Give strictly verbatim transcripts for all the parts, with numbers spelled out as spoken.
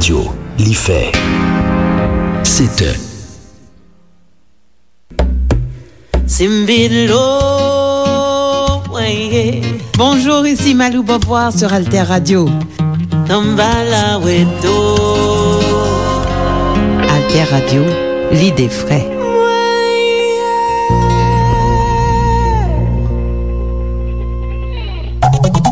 Radyo, li fè sèt è. Simbilo, mwen ye. Bonjour, ici Malou Beauvoir sur Alter Radio. Namba la weto. Alter Radio, lide fre.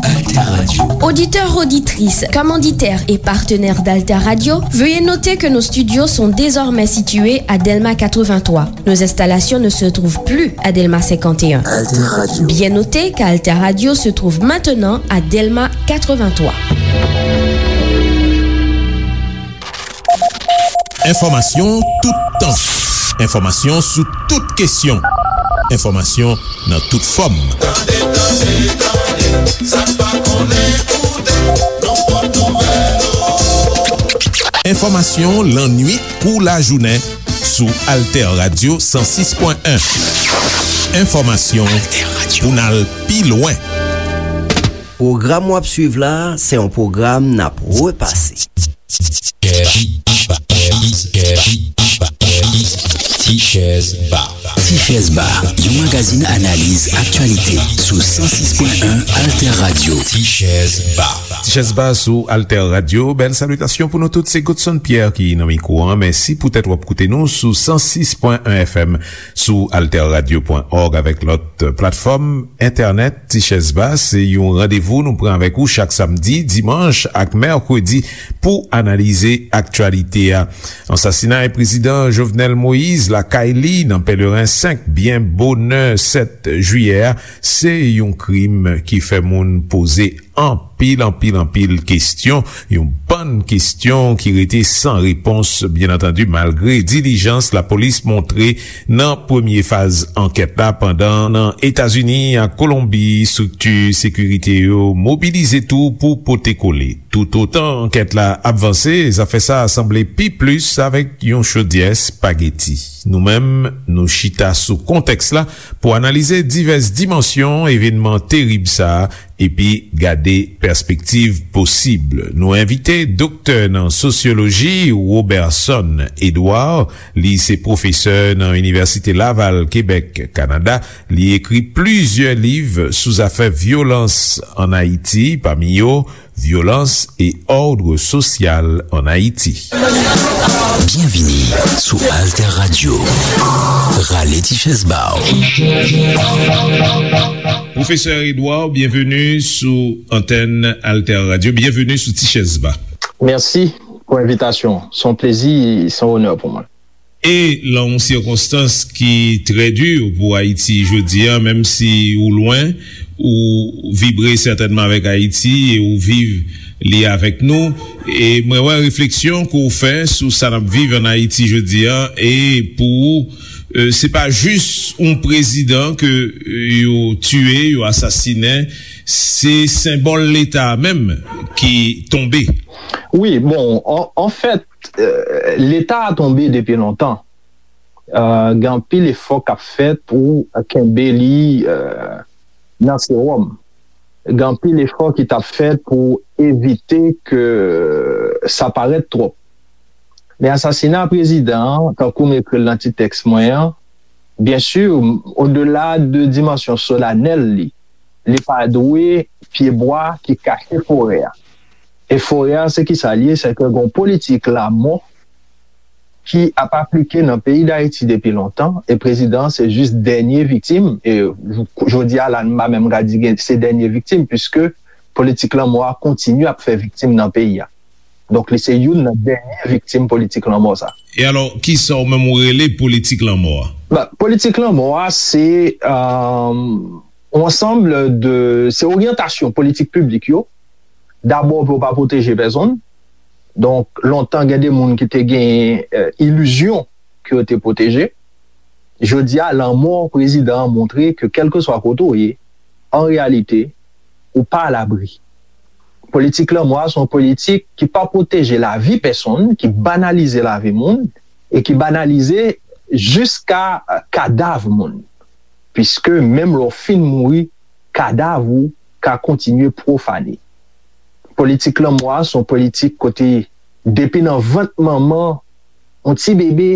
Alter Radio. Auditeurs, auditrices, commanditaires et partenaires d'Alter Radio, veuillez noter que nos studios sont désormais situés à Delma quatre-vingt-trois. Nos installations ne se trouvent plus à Delma cinquante et un. Alter Radio. Bien noter qu'Alter Radio se trouve maintenant à Delma quatre-vingt-trois. Enfòmasyon toutan. Enfòmasyon sou tout kesyon. Enfòmasyon nan tout fòm. Tande, tande, tande, sa n pa konnen koute, nan pòt nouvèl. Enfòmasyon lannwit kou lajounen sou Alter Radio san sis pwen en. Enfòmasyon pou n al pi lwen. Pwogram w ap swiv la, se yon pwogram n ap repase. Tichèz Ba. Tichèz Ba, yon magazin analiz aktyalite sou san sis pwen en Alter Radio. Tichèz Ba. Tichèz Ba sou Alter Radio. Bèl salitasyon pou nou tout. Se Godson Pierre ki nan mikwo an. Mèsi poutèt w ap koute nou sou san sis pwen en F M, sou alter radio pwen org avèk lòt platfòm entènèt. Tichèz Ba, se yon randevou nou pran avèk ou chak samdi, dimanch ak mèkredi pou analize aktyalite a. Ansasinay prezidan Jovenel Moïse lakay li nan Pèleren senk, byen bonè sèt jiyè a, se yon krim ki fè moun poze anpil, anpil, anpil kesyon. Yon bann kesyon ki rete san repons, byen antandi, malgre dilijans lapolis montre nan premye faz ankèt la, pandan nan Etazini ak Kolonbi, estrikti sekirite yo mobilize tou pou pote kole. Toutotan ankèt la ap vanse, zafè sa a sanble pi plis avèk yon chodyè espageti. Nou menm, nou chita sou kontèks la pou analize divès dimansyon evènman terib sa a epi gade pèspektiv posib. Nou envite doktè nan sosyoloji, Roberson Edouard. Li se pwofesè nan Inivèsite Laval, Kebèk, Kanada. Li ekri plizyè liv sou zafè vyolans ann Ayiti, pami yo Violence et ordre social en Haïti. Byenvini sou Alter Radio. Rale ti chèz ba w. Pwofesè Edouard, byenveni sou antèn Alter Radio. Byenveni sou Ti Chèz Ba. Mèsi pou envitasyon. Se yon plezi, se yon onè pou mwen. E lan yon sikonstans ki trè di pou Ayiti jodi a, menm si ou lwen, ou vibre sètènman avèk Ayiti e ou viv li avèk nou. E mwen wè refleksyon ke w fè sou sa n ap viv ann Ayiti jodi a, e pou ou, e, se pa jis yon prezidan ke, e, yo tiye, yo asasinen, se senbòl Leta a menm ki tonbe. Wi, bon, an, anfèt, eh, Leta a tonbe depi lontan. Eh, gen anpil efò k ap fèt pou kenbe li, eh, nan sewòm. Gen anpil efò ki t ap fèt pou evite ke sa parèt twòp. Men asasina prezidan an, tankou m ekri l nan ti tèks mwen an, byen si, odela de dimansyon solanèl li, li pa dwe pyebwa ki kache forè a. E forè a, se ki sa l ye? Se ke gon politik lanmò ki ap aplike nan peyi Dayiti depi lontan, e prezidan an se jis dènye viktim, e j-, jodi a la, m pa menm ka di gen, se dènye viktim, piske politik lanmò a kontinye ap fè viktim nan peyi a. Donk, li se youn nan dènye viktim politik lanmò sa. E alò, kisa w menm ou rele politik lanmò a? Ba, politik lanmò a, se, euh, yon ansanm de, se oryantasyon politik piblik yo. Dabò, pou yo pa pwoteje pèsonn. Donk, lontan, gen de moun ki te gen, eh, ilizyon ke yo te pwoteje. Jodi a, lanmò prezidan an montre ke kèlkeswa kote w ye, an reyalite, ou pa alabri. Politik lanmò a se yon politik ki pa pwoteje lavi pèsonn, ki banalize lavi moun, e ki banalize jiska, eh, kadav moun. Piske menm lè w fin mouri, kadav ou ka kontinye pwofane. Politik lanmò a se yon politik kote depi nan vant manman, yon ti bebe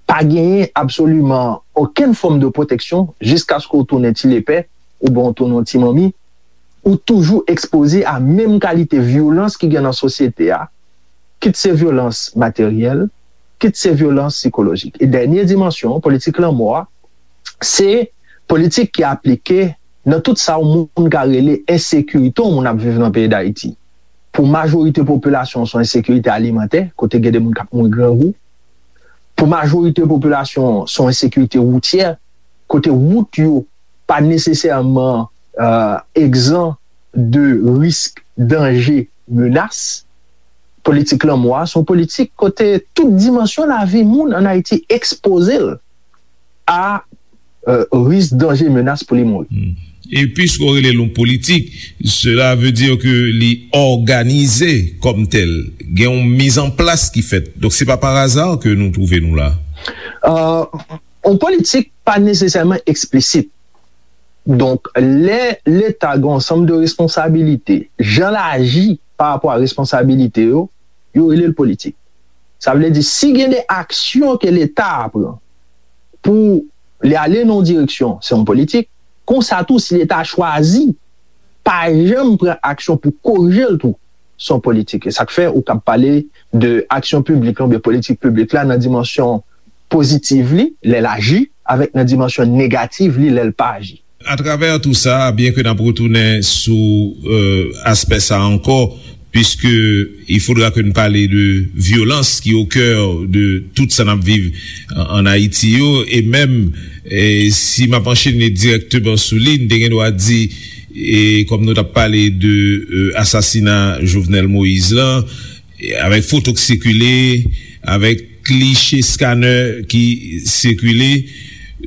pa genyen absoliman okenn fòm de pwoteksyon jiskaske w tounen ti lepè oubyen w tounen yon ti manmi, ou toujou ekspoze a menm kalite vyolans ki gen nan sosyete a, kit se vyolans materyèl, kit se vyolans sikolojik. E dènye dimansyon, politik lanmò a, se politik ki aplike nan tout sa yon moun ka rele ensekirite yon moun ap viv nan peyi Dayiti. Pou majorite popilasyon, se yon ensekirite alimantè, kote gen de moun k ap mouri grangou. Pou majorite popilasyon, se yon ensekirite woutyè, kote wout yo pa nesesèman egzan de risk, danje, menas. Politik lanmò a se yon politik kote tout dimansyon lavi moun ann Ayiti ekspoze l a risk, danje, menas pou li mouri. E piske w rele l yon politik, cela veut dire que li òganize kòm tèl. Gen yon mizanplas ki fèt. Donk, se pa pa aza ke nou twouve nou la. Yon politik pa nesesèman eksplisit. Donk, lè Leta gen yon ansanm de responsabilite, jan l aji pa rapò a responsabilite yo, yo rele l politik. Sa vle di, si gen de aksyon ke Leta a pran pou li ale nan yon direksyon, se yon politik. Konsa tou, si Leta a chwazi pa janm pran aksyon pou korije l tou, se yon politik. E sa k fè ou kab pale de aksyon piblik la oubyen politik piblik la nan dimansyon pozitiv li, lè l aji, avèk nan dimansyon negativ li, lè l pa aji. Atravè tou sa, byen ke n ap retounen sou aspè sa ankò, puisque il faudra que n pale de vyolans ki au cœur de tout sa n ap viv an Ayiti yo, e menm si m ap anchene dirèkteman sou li, n te gen dwa di, e kòm nou t ap pale de asasina Jovenel Moïse lan, avèk foto k sikile, avèk kliche scanner ki sikile,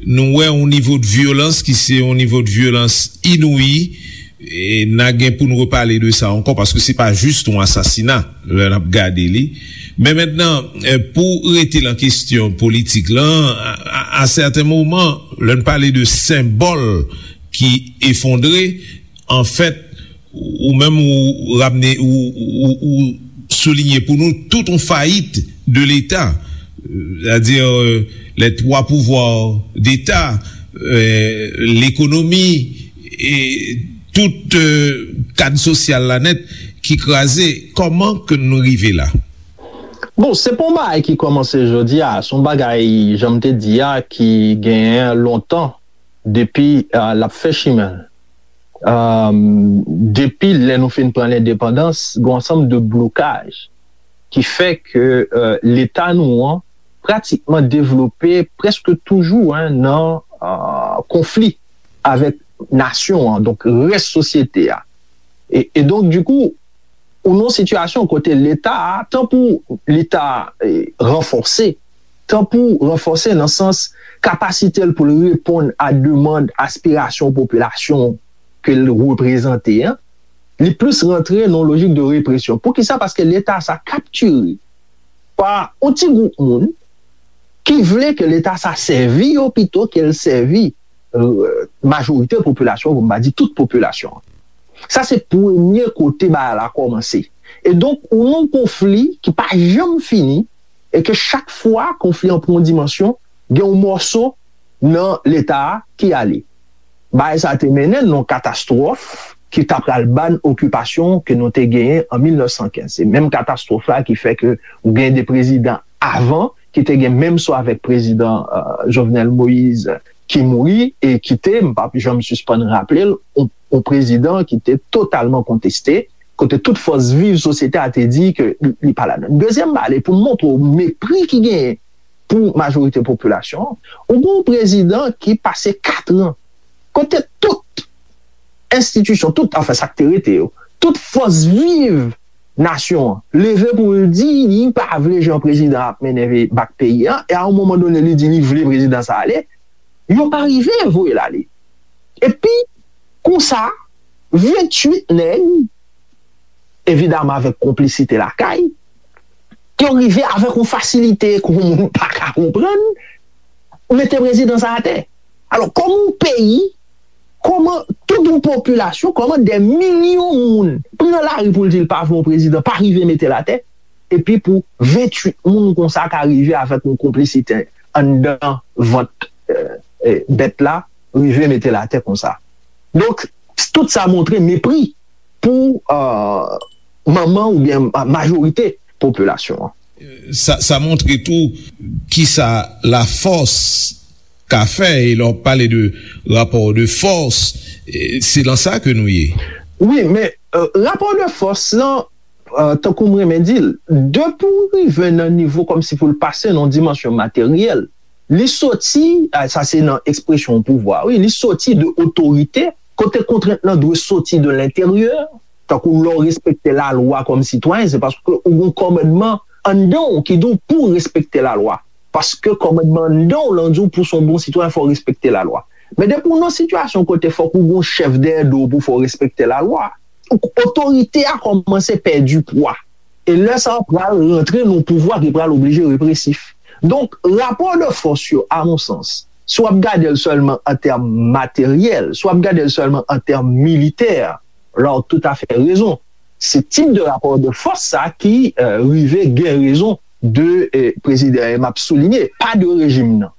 nou wè yon nivo de vyolans ki se yon nivo de vyolans inouyi, e n a gen pou n repale de sa ankò, paske se pa jis yon asasina lè n ap gade li. Men mentnan, pou rete lan kesyon politik lan, a sèten moman, lè n pale de senbòl ki efondre, anfèt, ou menm ou ramne, ou soulinye pou nou tout yon fayit de Leta, sètadi les trois pouvoirs d'État, lekonomi, e tout kad sosyal la nèt ki kraze. Kòman ke nou rive la? Bon, se pa yon bagay ki kòmanse jodi a, se yon bagay, jan m te di a, ki genyen lontan depi l ap fè chimen l. Depi lè nou fin pran lendepandans, gen yon ansanm de blokaj ki fè ke Leta nou an pratikman devlope prèske toujou nan konfli avèk nasyon an, donk rès sosyete a. E donk, dikou, ou nan yon sitiyasyon kote Leta a, tan pou li ta ranfòse, tan pou ranfòse nan sans kapasite l pou l reponn a demann, aspirasyon popilasyon ke l reprezante an, li plis rantre nan yon lojik de represyon. Poukisa? Paske Leta sa kaptire pa yon ti gwoup moun ki vle ke Leta sa sèvi yo pito ke l sèvi majorite popilasyon, pou m pa di tout popilasyon. Sa se premye kote bagay la kòmanse. E donk, ou nan yon konfli ki pa janm fini, e ke chak fwa konfli an pran yon dimansyon, gen yon mòso nan Leta a ki ale. Bagay sa te mennen nan yon katastwòf ki ta pral ban okipasyon ke nou te genyen an mil nèf san kenz. Se menm katastwòf la ki fè ke ou gen de prezidan avan ki te gen menm sò avèk prezidan Jovenel Moïse ki mouri e ki te, m p ap janm sispann raple l, yon prezidan ki te totalman konteste, kote tout fòs viv sosyete a te di ke li pa ladan. Dezyèm bagay, pou montre w mepri ki genyen pou majorite popilasyon an, ou gen yon prezidan ki pase kat an kote tout enstitisyon, tout, anfen, sa k te rete yo, tout fòs viv nasyon an leve pou l di li pa vle jan prezidan ap mennen bak peyi an, e a yon moman done li di li vle prezidan sa ale, yo pa rive voye l ale. Epi, konsa, venntuit nèg, evidaman avèk konplisite lakay, yo rive avèk yon fasilite ke yon moun pa ka konprann, mete prezidan sa atè. Alò, kòman yon peyi, kòman tout yon popilasyon, kòman dè milyon moun pran lari pou l di l pa vle yon prezidan, pa rive mete l atè? epi pou venntuit moun konsa ka rive avèk yon konplisite anndan vant, eh, eh, bèt la, rive mete l atè konsa. Donk, tout sa montre mepri pou, eh, manman oubyen ma-, majorite popilasyon an. Sa, sa montre tou kisa lafòs ka fè, e lè w pale de rapò de fòs, eh, se nan sa ke nou ye. Wi, men, eh, rapò de fòs lan, eh, tankou m renmen di l, depi w rive nan nivo kòmsi pou l pase nan yon dimansyon materyèl, li soti, ah, sa se nan ekspresyon pouvwa, wi, li soti de otorite, kote kontrent lan dwe soti de lenteryè, tankou lè w respekte lalwa kòm sitwayen, se paske ou gen yon kòmandman anndan w ki di w pou w respekte lalwa. Paske kòmandman anndan w lan di w pou w se yon bon sitwayen, fò w respekte lalwa. Men depi w nan sitiyasyon kote fòk ou gen yon chèf dèyè do w pou fè w respekte lalwa, otorite a kòmanse pèdi pwa. E lè sa a pral rantre nan yon pouvwa ki pral oblije represif. Donk, rapò de fòs yo, a mon sans, si w ap gade l sèlman an tèm materyèl, si w ap gade l sèlman an tèm militè, la w toutafè rezon. Se tip de rapò de fòs sa ki, eh, rive gen rezon de, eh, prezidan, e m ap soulinye, pa de rejim nan.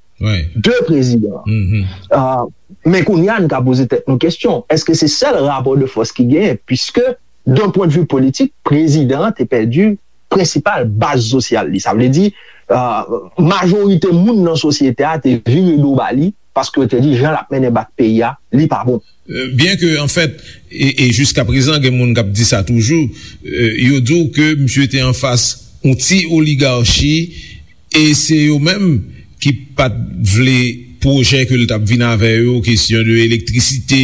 De prezidan an. Ah, men kounye a, n ka poze tèt nou kesyon, èske se sèl rapò de fòs ki genyen? Piske, d'un pwen de vi politik, prezidan an te pèdi prensipal baz sosyal li. Sa vle di, ah, majorite moun nan sosyete a te vire do ba li, paske yo te di jan l ap mennen bak peyi a, li pa bon. Euh, byen ke, anfèt, e, e jiska prezan, gen moun k ap di sa toujou, euh, yo di w ke misye te anfas yon ti oligachi, e se yo menm ki pa t vle pwojè ke l t ap vin avè yo, kesyon de elektrisite,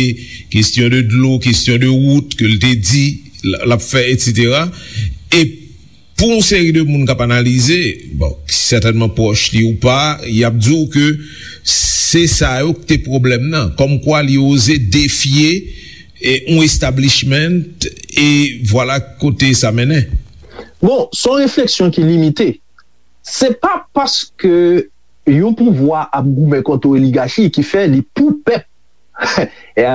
kesyon de dlo, kesyon de wout ke l te di l, l ap fè, etsetera. E pou yon seri de moun k ap analize, bon, ki sètènman pwòch li ou pa, y ap di w ke se sa yo k te pwoblèm nan. Kòmkwa li oze defye, e, yon establishment, e vwala kote sa mennen. Bon, se yon refleksyon ki limite. Se pa paske yon pouvwa ap goumen kont yon oligachi ki fè li pou pèp. E,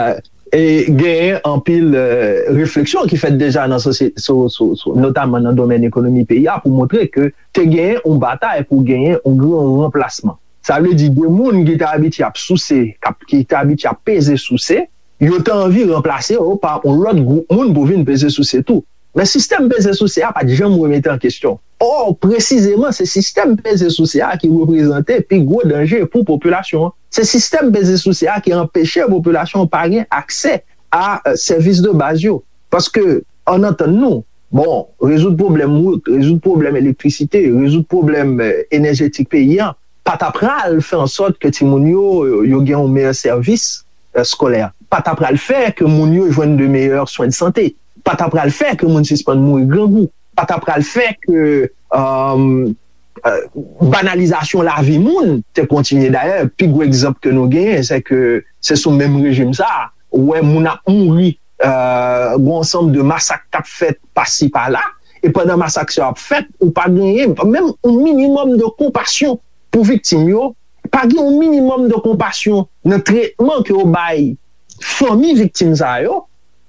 e genyen anpil, eh, refleksyon ki fèt deja nan sosye-, so, so, so, notaman nan domèn ekonomi peyi a, pou montre ke te genyen yon batay pou genyen yon gran ranplasman. Sa vle di, de moun ki te abitye ap souse, k ap, ki te abitye ap peze souse, yo te anvi ranplase yo pa yon lòt gwoup moun pou vin peze souse tou. Men sistèm peze souse a pa t janm remete an kesyon. Ò, presizeman, se sistèm peze souse a ki reprezante pi gwo danje pou popilasyon an. Se sistèm peze souse a ki anpeche popilasyon an pa gen aksè a, eh, sèvis de baz yo. Paske, ann antann nou, bon, rezoud pwoblèm wout, rezoud pwoblèm elektrisite, rezoud pwoblèm, eh, enèjetik peyi a, pa ta pral fè an sòt ke timoun yo, yo gen yon meyè sèvis, eh, eskolè. Pa ta pral fè ke moun yo jwenn de meyè swen de sante. Pa ta pral fè ke moun sispann mouri grangou. Pa ta pral fè ke, euh, euh, banalizasyon lavi moun te kontinye. Dayè, pi gwo egzanp ke nou genyen, se ke se sou menm rejim sa a, ou wè moun ap mouri, euh, gen yon ansanm de masak k ap fèt pasi pala, e pandan masak sa yo ap fèt, ou pa genyen menm yon minimòm de konpasyon pou viktim yo, pa gen yon minimòm de konpasyon nan tretman ke yo bay fanmi viktim sa yo,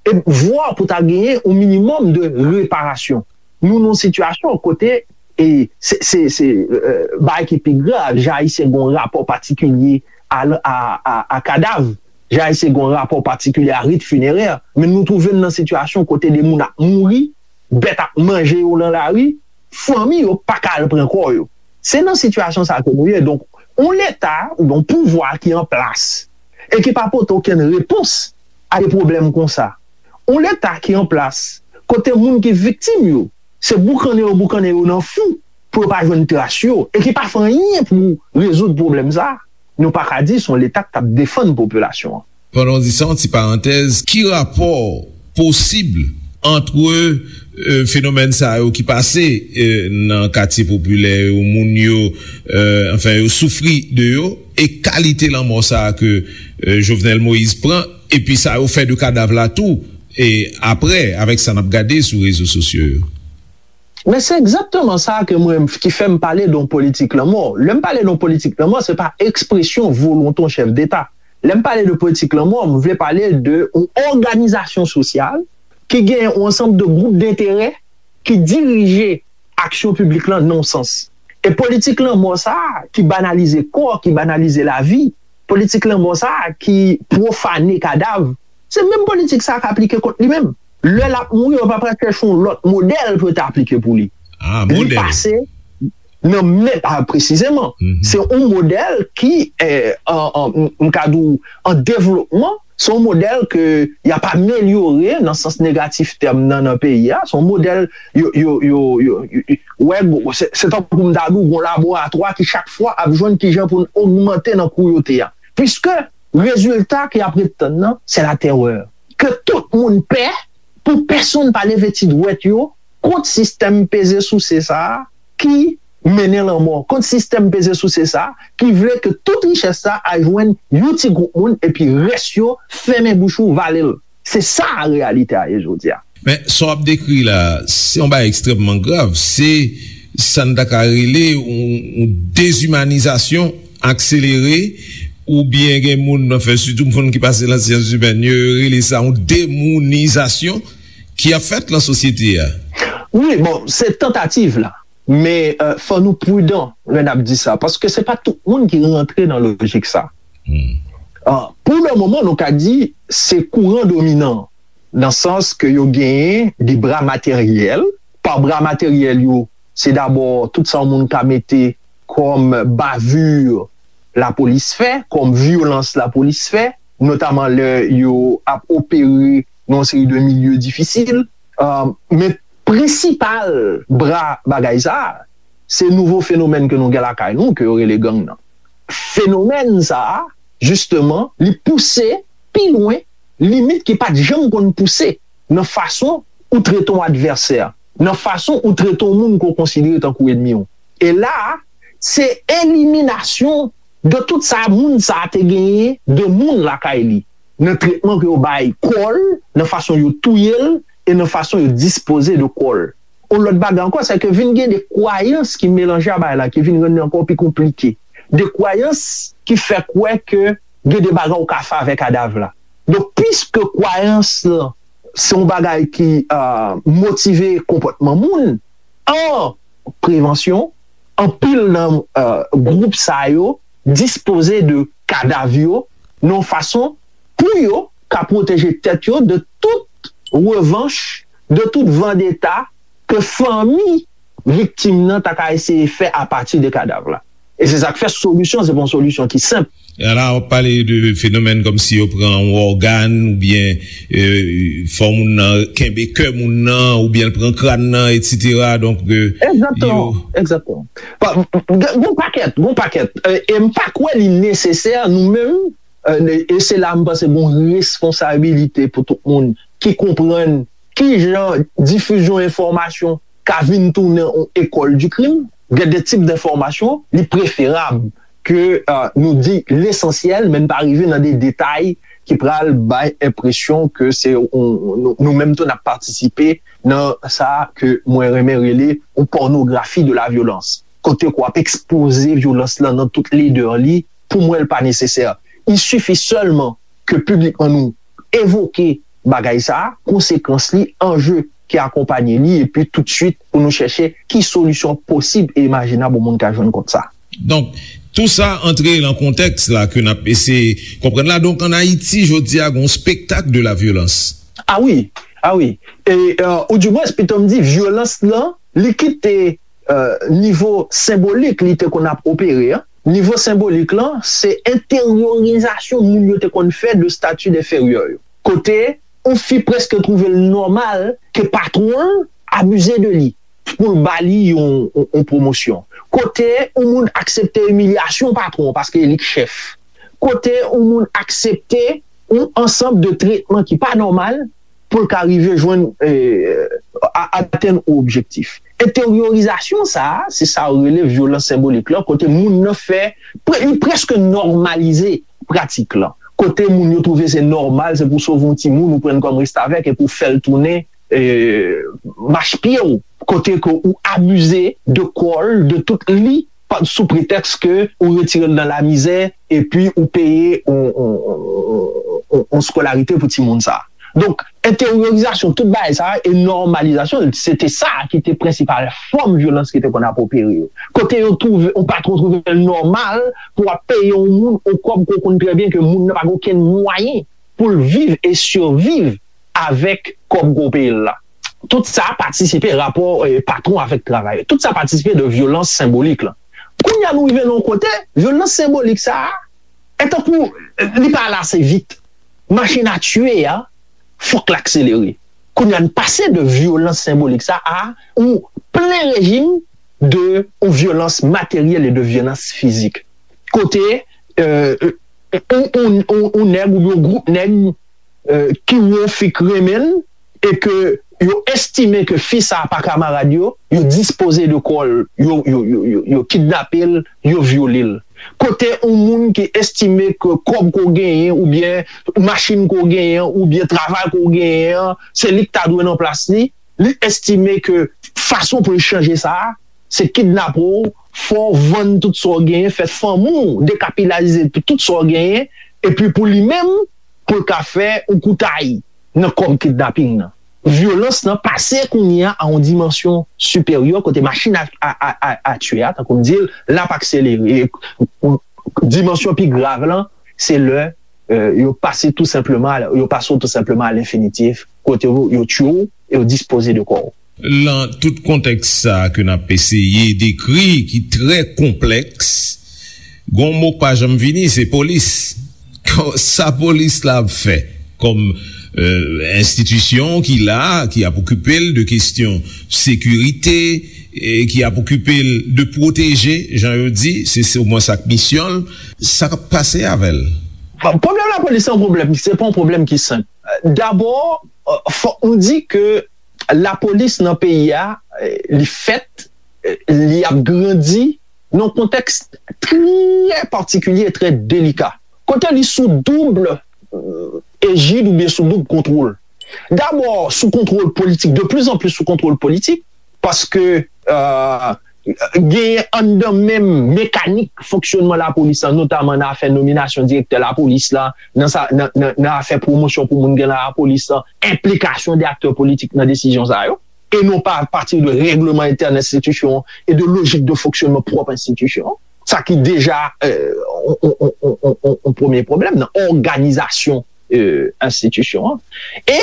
e vwa pou ta genyen yon minimòm de reparasyon. Nou nan yon sitiyasyon kote, e se, se, se, euh, bagay ki pi grav, jan Ayisyen gen yon rapò patikilye a, a, a, a kadav, jan Ayisyen gen yon rapò patikilye a rit finerè, men nou twouve n nan sitiyasyon kote de moun ap mouri, bèt ap manje yo nan lari, fanmi yo pa ka al pran kò yo. Se nan sitiyasyon sa ke nou ye. Donk, yon leta oubyen yon pouvwa ki an plas e ki pa pote okenn repons a de pwoblèm konsa. Yon leta ki an plas kote moun ki viktim yo, se boukannen yo boukannen yo nan fou pou yo pa jwenn tras yo e ki pa fè anyen pou rezoud pwoblèm sa, nou pa ka di se yon leta k t ap defann popilasyon an. Pandan w di sa, yon ti parantèz, ki rapò posib ant, euh, fenomèn sa yo ki pase, euh, nan katye popilè yo, moun yo, euh, anfen, yo soufri de yo, e kalite lanmò sa a ke, euh, Jovenel Moïse pran, epi sa yo fè de kadav la tou, e apre, avèk sa n ap gade sou rezo sosyo yo? Men se egzakteman sa ke mwen, ki fè m pale de yon politik lanmò. Lè m pale de yon politik lanmò, se pa ekspresyon volonte yon chèf deta. Lè m pale de politik lanmò, m vle pale de yon òganizasyon sosyal ki gen yon ansanm de gwoup denterè ki dirije aksyon piblik lan nan yon sans. E politik lanmò sa a, ki banalize kò, ki banalize lavi, politik lanmò sa a, ki pwofane kadav, se menm politik sa a k aplike kont li menm. Lè l ap mouri, yo pa pral chèche yon lòt modèl pou yo te aplike pou li. Ah, Li modèl. pase nan men, ah, presizeman, Mhm. se yon modèl ki, eh, an, an, m ka di w, an devlopman, se yon modèl ke y ap amelyore nan sans negatif tèm nan, nan peyi a. Se yon modèl, yo, yo, yo, yo, yo, yo, wè, gwo- se se tankou m ta di w, gon laboratwa ki chak fwa ap jwenn kijan pou n ogmante nan kouyote a. Piske rezilta ke y ap ret tann nan, se latèrè. Ke tout moun pè, pou pèsonn pa leve ti dwèt yo kont sistèm peze souse sa a ki mennen lanmò, kont sistèm peze souse sa a ki vle ke tout richès sa a al jwenn yon ti gwoup moun, epi rès yo fèmen bouch ou, vale l. Se sa reyalite a ye jodi a. Men sa w ap dekri la, se yon bagay ekstrèmman grav. Se sa n ta ka rele yon, yon dezimanizasyon akselere, oubyen gen moun nan fè, sitou moun ki pase nan syans imèn, yo rele sa yon demounizasyon ki ap fèt nan sosyete a. Wi, bon, se tantativ la. Men, euh, fò nou pridan lè n ap di sa, paske se pa tout moun ki rantre nan lojik sa. Hmm. Ah, pou le moman, nou ka di se kouran dominan, nan sans ke yo genyen de bra materyèl. Pa bra materyèl yo, se dabò tout sa yon moun ka mete kòm bavure lapolis fè, kòm vyolans lapolis fè, notaman lè yo ap opere nan yon seri de milye difisil. Ah, men prensipal bra bagay sa a, se nouvo fenomèn ke nou gen lakay nou, ke yo rele gang nan. Fenomèn sa a, jisteman, li pouse pi lwen limit ki pa t janm konn pouse nan fason ou trete yon advèsè, nan fason ou trete yon moun ke w konsidere tankou ènmi w. E la a, se eliminasyon de tout sa moun sa a te genyen de moun lakay li, nan tretman ke yo bay kò l, nan fason yo touye l, e nan fason yo dispoze de kò l. Yon lòt bagay ankò, se ke vin gen de kwayans ki melanje a bagay la, ki vin rann li ankò pi konplike. De kwayans ki fè kwè ke gen de bagay ou ka fè avèk kadav la. Donk, piske kwayans lan se yon bagay ki, euh, motive konpòtman moun, an prevansyon, anpil nan, euh, gwoup sa yo dispoze de kadav yo nan yon fason pou yo ka pwoteje tèt yo de tout revanch, de tout vandeta ke fanmi viktim nan ta ka eseye fè apati de kadav la. E se sa k fè solisyon, se pa yon solisyon ki senp. E la, w ap pale de fenomèn kòmsi yo pran yon ògàn, oubyen, euh, fè moun nan kenbe kè moun nan, oubyen l pran kràn nan, etsetera. Donk, euh, Egzakteman, egzakteman. Pa- Gon pakèt, gon pakèt. Euh, e m pa kwè li nesesè, nou menm, euh, e se la m panse gon responsabilite pou tout moun ki konprann ki jan difizyon enfòmasyon ka vin tounen yon école du crime. Gen de tip de enfòmasyon, li preferab ke, euh, nou di lesansyèl, men n pa rive nan de detay ki pral bay enpresyon ke se yon- nou, nou menm tou n ap patisipe nan sa ke mwen renmen rele yon pònografi de la vyolans. Kote ke w ap ekspoze vyolans lan nan tout ledè li, pou mwen, l pa nesesè. Il suffit sèlman ke piblikman nou evoke bagay sa a, konsekans li, anje ki akonpanye li, epi toutswit pou nou chèche ki solisyon posib e imajinab yon moun ka jwenn kont sa. Donk, tou sa antre nan kontèks la ke n ap eseye konprann la. Donk, ann Ayiti, jodi a, gen yon spektak de la vyolans. Ah wi, ah wi. E, euh, oudimwens, pito m di, vyolans lan, li kite, euh, nivo senbolik li te konn ap opere, an. Nivo senbolik lan, se enteryorizasyon moun yo te konn fè de stati denferyè yo. Kote yon fi prèske twouve l nòmal ke patwon l abize de li pou l ba li yon, yon, yon pwomosyon. Kote yon moun aksepte imilyasyon patwon paske e li k chèf. Kote yon moun aksepte yon ansanm de tretman ki pa nòmal pou l ka rive jwenn, eh, a- atenn yon objektif. Enteryorizasyon sa a, se sa yo rele vyolans senbolik lan, kote moun nan fè, pre- li prèske nòmalize pratik lan. Kote moun yo twouve se nòmal, se pou sove yon timoun, ou pran l kòm restavèk epi w fè l tounen, eh, machpye w. Kote ke ou abize de kò l, de tout li, pa- sou pretèks ke ou retire l nan lamizè, epi ou peye yon, yon, yon, yon, yon skolarite pou timoun sa a. Donk, Enteryorizasyon tout bagay sa a e nòmalizasyon l, se te sa ki te prensipal fòm vyolans ki te konn ap opere yo. Kote yo twouve, yon patwon twouve l nòmal pou w ap peye yon moun yon kòb ke w konn trè byen ke moun nan pa gen okenn mwayen pou l viv e siviv avèk kòb ke w peye l la. Tout sa patisipe rapò, eh, patwon avèk travayè. Tout sa patisipe de vyolans senbolik la. Kounye a nou rive nan yon kote, vyolans senbolik sa a, e tankou, eh, li pa ale ase vit. Machin a tiye a, fòk l akselere. Kounye a n pase de vyolans senbolik sa a yon plen rejim de yon vyolans materyèl e de vyolans fizik. Kote, eh, yon, yon, yon, yon nèg oubyen yon gwoup nèg, eh, ki wè yon fi k renmen l e ke yo estime ke fi sa a pa kamarad yo, yo dispoze de kò l, yo, yo, yo, yo, yo kidnape l, yo vyole l. Kote yon moun ki estime ke kòb ke w genyen, oubyen machin ke w genyen, oubyen travay ke w genyen an, se li k ta dwe nan plas li, li estime ke fason pou l chanje sa a, se kidnape w, fè w vann tout sa w genyen, fè fanmi w dekapitalize tout sa w genyen, epi pou li menm, pou l ka fè yon koutay nan kòb kidnaping nan. Vyolans lan pase kounye a a yon dimansyon siperyè kote machin a, a, a, a, a tiye a, tankou m di l, l ap akselere. E, dimansyon pi grav lan, se lè, euh, yo pase tou senpleman, yo pase w tou senpleman a lenfinitif, kote yo, yo tiye w e yo dispoze de kò w. Lan tout kontèks sa a ke n ap eseye dekri, ki trè konplèks, gon mo k pa janm vini, se polis. Sa polis la ap fè kòm, euh, enstitisyon ki la, ki ap okipe l de kesyon sekirite, e ki ap okipe l de pwoteje, jan yo di, se, se omwen sa k misyon l, sa k ap pase avè l? Bon, pwoblèm lapolis se yon pwoblèm, se pa yon pwoblèm ki senp. Dabò, euh, fòk nou di ke lapolis nan peyi a, eh, li fèt, eh, li ap grandi nan yon kontèks trè patikilye e trè delika. Kote li sou doub, eh, ejid oubyen sou doub kontwòl. Dabò, sou kontwòl politik, de plus en plus sou kontwòl politik, paske, eh, genyen anndan menm mekanik fonksyònman lapolis lan, notaman nan afè nominasyon direktè lapolis la, nan sa, nan, nan, nan afè pwomosyon pou moun gen nan lapolis lan, enplikasyon de aktè politik nan desizyon sa yo, e non pa apati de règleman entèn enstitisyon e de lojik de fonksyònman pwòp enstitisyon, sa ki deja, euh, yon, yon, yon, yon, yon premye pwoblèm nan òganizasyon, euh, enstitisyon an. E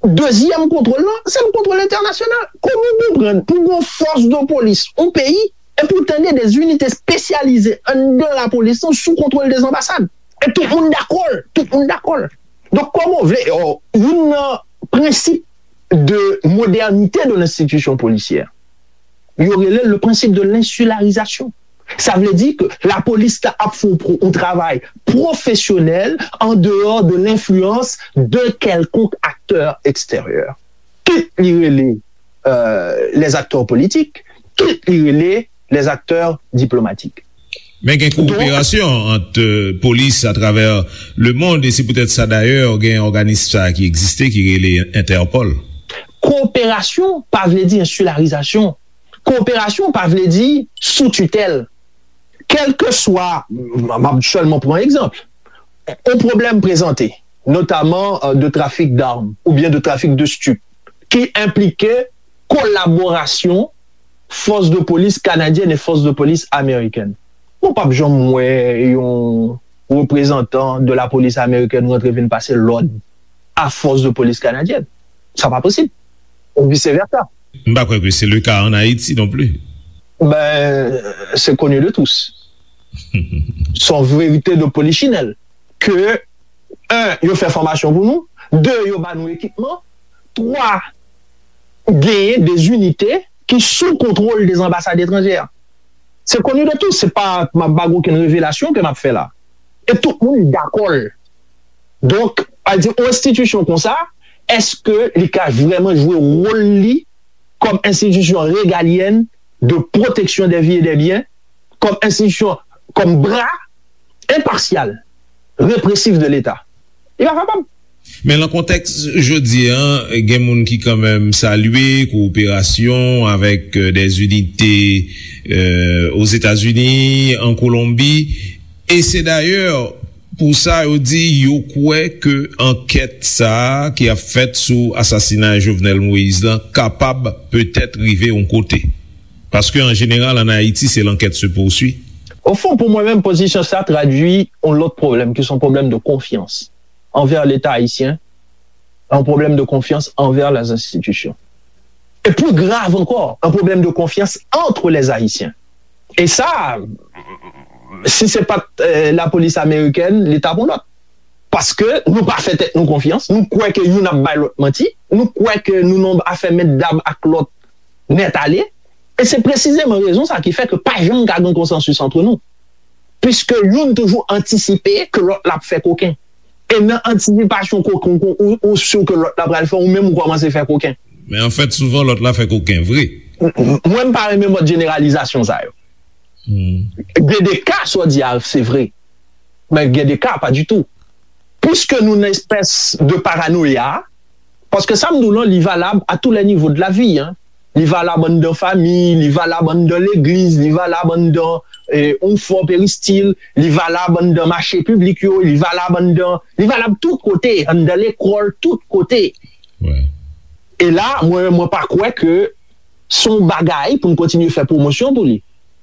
dezyèm kontwòl lan, se yon kontwòl entènasyonal. Kòman w konprann pou yon fòs de polis, yon peyi, e pou tande de zinite espesyalize anndan lapolis lan sou kontwòl de anbasad? E tout moun dakò l, tout moun dakò l. Donk, kòman w vle, oh, youn nan prensip de modernite de lenstitisyon polisyè, yo rele l le principe de l'insularisation. Sa vle di ke lapolis la ap fè yon pro- yon travay pwofesyonèl an deyò de lenfliyans de kèlkonk aktè eksteryè. Kit li rele, euh, les acteurs politiques, kit li rele les acteurs diplomatiques. Men gen kowoperasyon ant, euh, polis atravè lemonn, e se poutèt sa dayè gen òganis sa ki egziste ki rele Entèpòl. Kowoperasyon pa vle di ensilarizasyon. Kowoperasyon pa vle di sou titèl. Kèlkeswa, m ap sèlman pran egzanp, yon pwoblèm prezante, notaman, euh, de trafik dam oubyen de trafik de stup, ki enplike kolaborasyon fòs de polis kanadyèn e fòs de polis amerikèn. Ou p ap janm wè yon reprezantan de lapolis amerikèn rantre vin pase lòd a fòs de polis kanadyèn. Sa pa posib. Ou vice versa. M pa kwè ke se le ka an Ayiti non pli. Ben, c'est connu de tous. C'est une vérité de polichinelle. Ke, un, yo fè fòmasyon pou nou, de, yo ba nou ekipman, twa, genyen de zinite ki sou kontwòl de anbasad etranjè. Se koni de tou, se pa, m ap ba okenn revelasyon ke m ap fè la. E tout moun dakò l. Donk, a di, yon enstitisyon konsa, èske li ka vrèman jwe wòl li kòm enstitisyon regalyèn de pwoteksyon dè vi e dè byen, kòm enstitisyon, kòm bra enpasyal, represif de Leta? Li pa kapab. Men nan kontèks jodi a, gen moun ki kanmenm salye kowoperasyon avèk, euh, des unités, euh, Ozetazini, an Kolonbi, e se dayè Pou sa, yo di yo kwè ke ankèt sa a ki ap fèt sou asasinay Jovenel Moïse lan kapab petèt rive yon kote. Paske, an jeneral, ann Ayiti, se l'enquête se poursuit. Au fond, pou mwen menm, pozisyon sa tradui yon lòt pwoblèm, ki se yon pwoblèm de konfyans anvè Leta ayisyen, yon pwoblèm de konfyans anvè les institutions. E pli grav ankò, yon pwoblèm de konfyans entre les Haïtiens. E sa, si se pa t, euh, lapolis amerikèn, li t ap yon lòt. Paske nou pa fè tèt nou konfyans, nou kwè ke youn ap bay lòt manti, nou kwè ke nou nan afè mèt dam ak lòt nèt ale. E se presizeman rezon sa ki fè ke pa janm ka gen konsansis ant nou. Piske youn toujou antisipe ke lòt la ap fè koken. E nan antisipasyon koken, ou, ou, ou si ke lòt la pral fè, ou menm ou kòmanse fè koken. Men anfèt, souvan lòt la fè koken vre. M, m, mwen, m pa renmen mòd jeneralizasyon sa yo. Hmm. Gen de ka, sa w di a, se vre. Men gen de ka, pa ditou. Piske nou nan espès de paranoya, paske sa m di w lan, li valab à tous les niveaux de la vie, hein. Li valab anndan fanmi, li valab anndan legliz, li valab anndan, eh, yon fò peristil, li valab anndan mache piblik yo, li valab anndan, li valab tout kote, anndan lekòl, tout kote. Wi. E la, mwen, mwen pa kwè ke se yon bagay pou n kontinye fè pwomosyon pou li.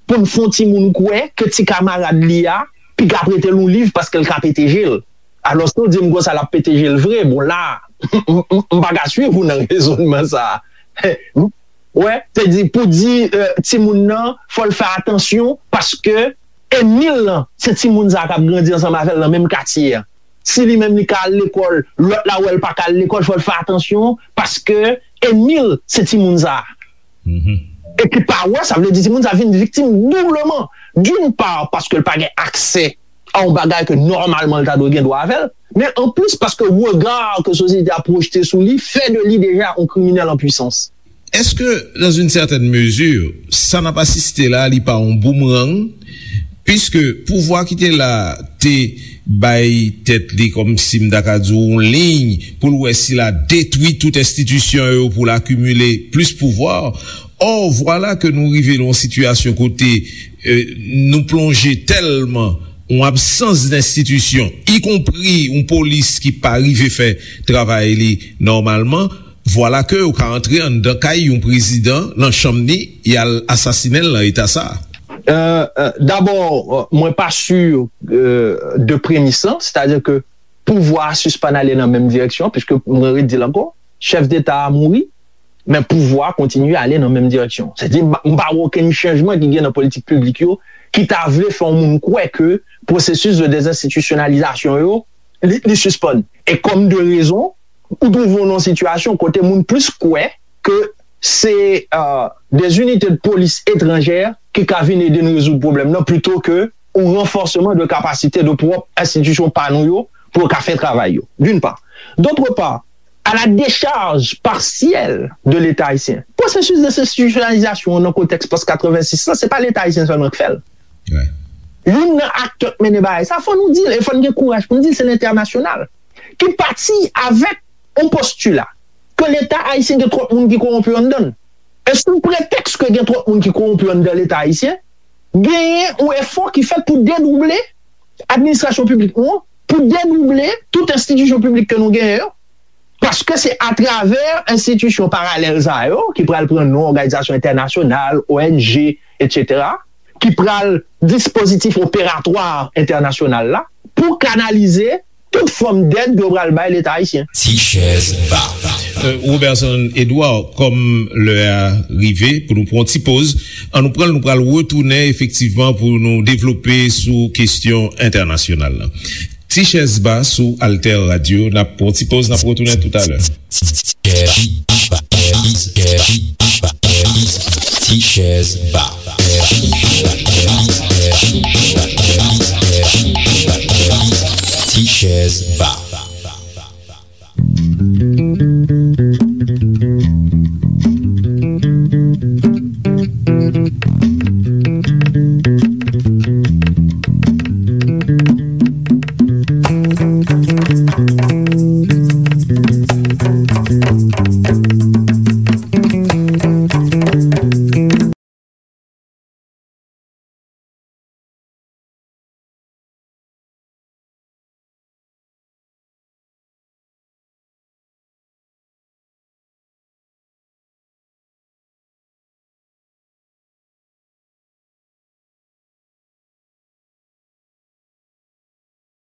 Pou n fè yon timoun kwè ke ti kamarad li a piga prete l yon liv paske l ka pete je l. Alòske w di m konsa l ap pete je l vre. Bon, la, m, m, m pa ka swiv ou nan rezònman sa a. Wè, se di, pou di, euh, timoun nan, fò l fè atansyon paske ènmi l lan, se timoun sa a k ap grandi ansanm avè l nan menm katye a. Si li menm li ka al lekòl, lòt la wè l pa ka al lekòl, fò l fè atansyon, paske ènmi l, se timoun sa a. Mhm. E ki pa wè, sa vle di timoun sa a vin viktim doubleman. D'une part, paske l pa gen aksè a yon bagay ke nòmalman l ta dwe gen dwa avè l, men anplis paske rega ke sosyete a pwojte sou li fè de li deja yon kriminèl an pwisans. Èske, dans une certaine mesure, sa n ap asiste la, li pa yon boumerang? Piske pouvwa ki te la te bay tèt li, kòmsi m ta ka di w, yon liy pou l wè si l a detwi tout enstitisyon yo pou l akimile plis pouvwa. Ò, vwala ke nou rive nan yon sitiyasyon kote, eh, nou plonje tèlman yon absans denstitisyon, ikonpri yon polis ki pa rive fè travay li nòmalman, vwala ke ou ka antre anndan kay yon prezidan, nan chanm li, y al asasinen l nan eta sa a. Euh, euh, dabò, euh, mwen pa si, euh, de premis lan, sètadi ke pouvwa a sispann ale nan menm direksyon, piske mwen redi l ankò, chèf deta a mouri, men pouvwa a kontinye ale nan menm direksyon. Sètadi, m pa, m pa wè okenn chanjman ki gen nan politik piblik yo ki ta vle fè yon moun kwè ke pwosesis de dezenstitisyonalizasyon yo, li, li sispann. E kòm de rezon, ou twouve w nan yon sitiyasyon kote moun plis kwè ke se, euh, des unités de police étrangères ki ka vin ede n rezoud pwoblèm nan, plito ke yon ranfòseman de kapasite de pwòp enstitisyon pa nou yo pou yo ka fè travay yo, d'une part. D'autre part, à la décharge partielle de l'État haïtien. Pwosesis dezenstitisyonalizasyon an nan kontèks pòs katrevensis lan, se pa Leta ayisyen sèlman k fè l. Wi. Youn nan aktè k mennen bagay sa, fò nou di l, e fò n gen kouraj pou n di l, se lentènasyonal. Ki pati avèk yon postila ke Leta ayisyen gen twòp moun ki kowonpi anndan l. E sou pretèks ke gen twòp moun ki kowonpi anndan Leta ayisyen, genyen yon efò ki fèt pou dedouble administrasyon piblik nou an, pou dedouble tout enstitisyon piblik ke nou genyen yo, paske se atravè enstitisyon paralèl sa yo, ki pral pran non òganizasyon entènasyonal, O N G, etsetera, ki pral dispozitif operatwa entènasyonal la, pou kanalize tout fòm dèd yo pral bay Leta ayisyen. Ti chèz ba. Euh, Roberson Edouard, kòm lè a rive pou nou pran yon ti poz, an nou pran l, nou pral retounen efektivman pou nou devlope sou kesyon entènasyonal la. Ti chèz ba sou Alter Radio, n ap pran yon ti poz, n ap retounen toutalè. Ti chèz ba. Ti chèz ba.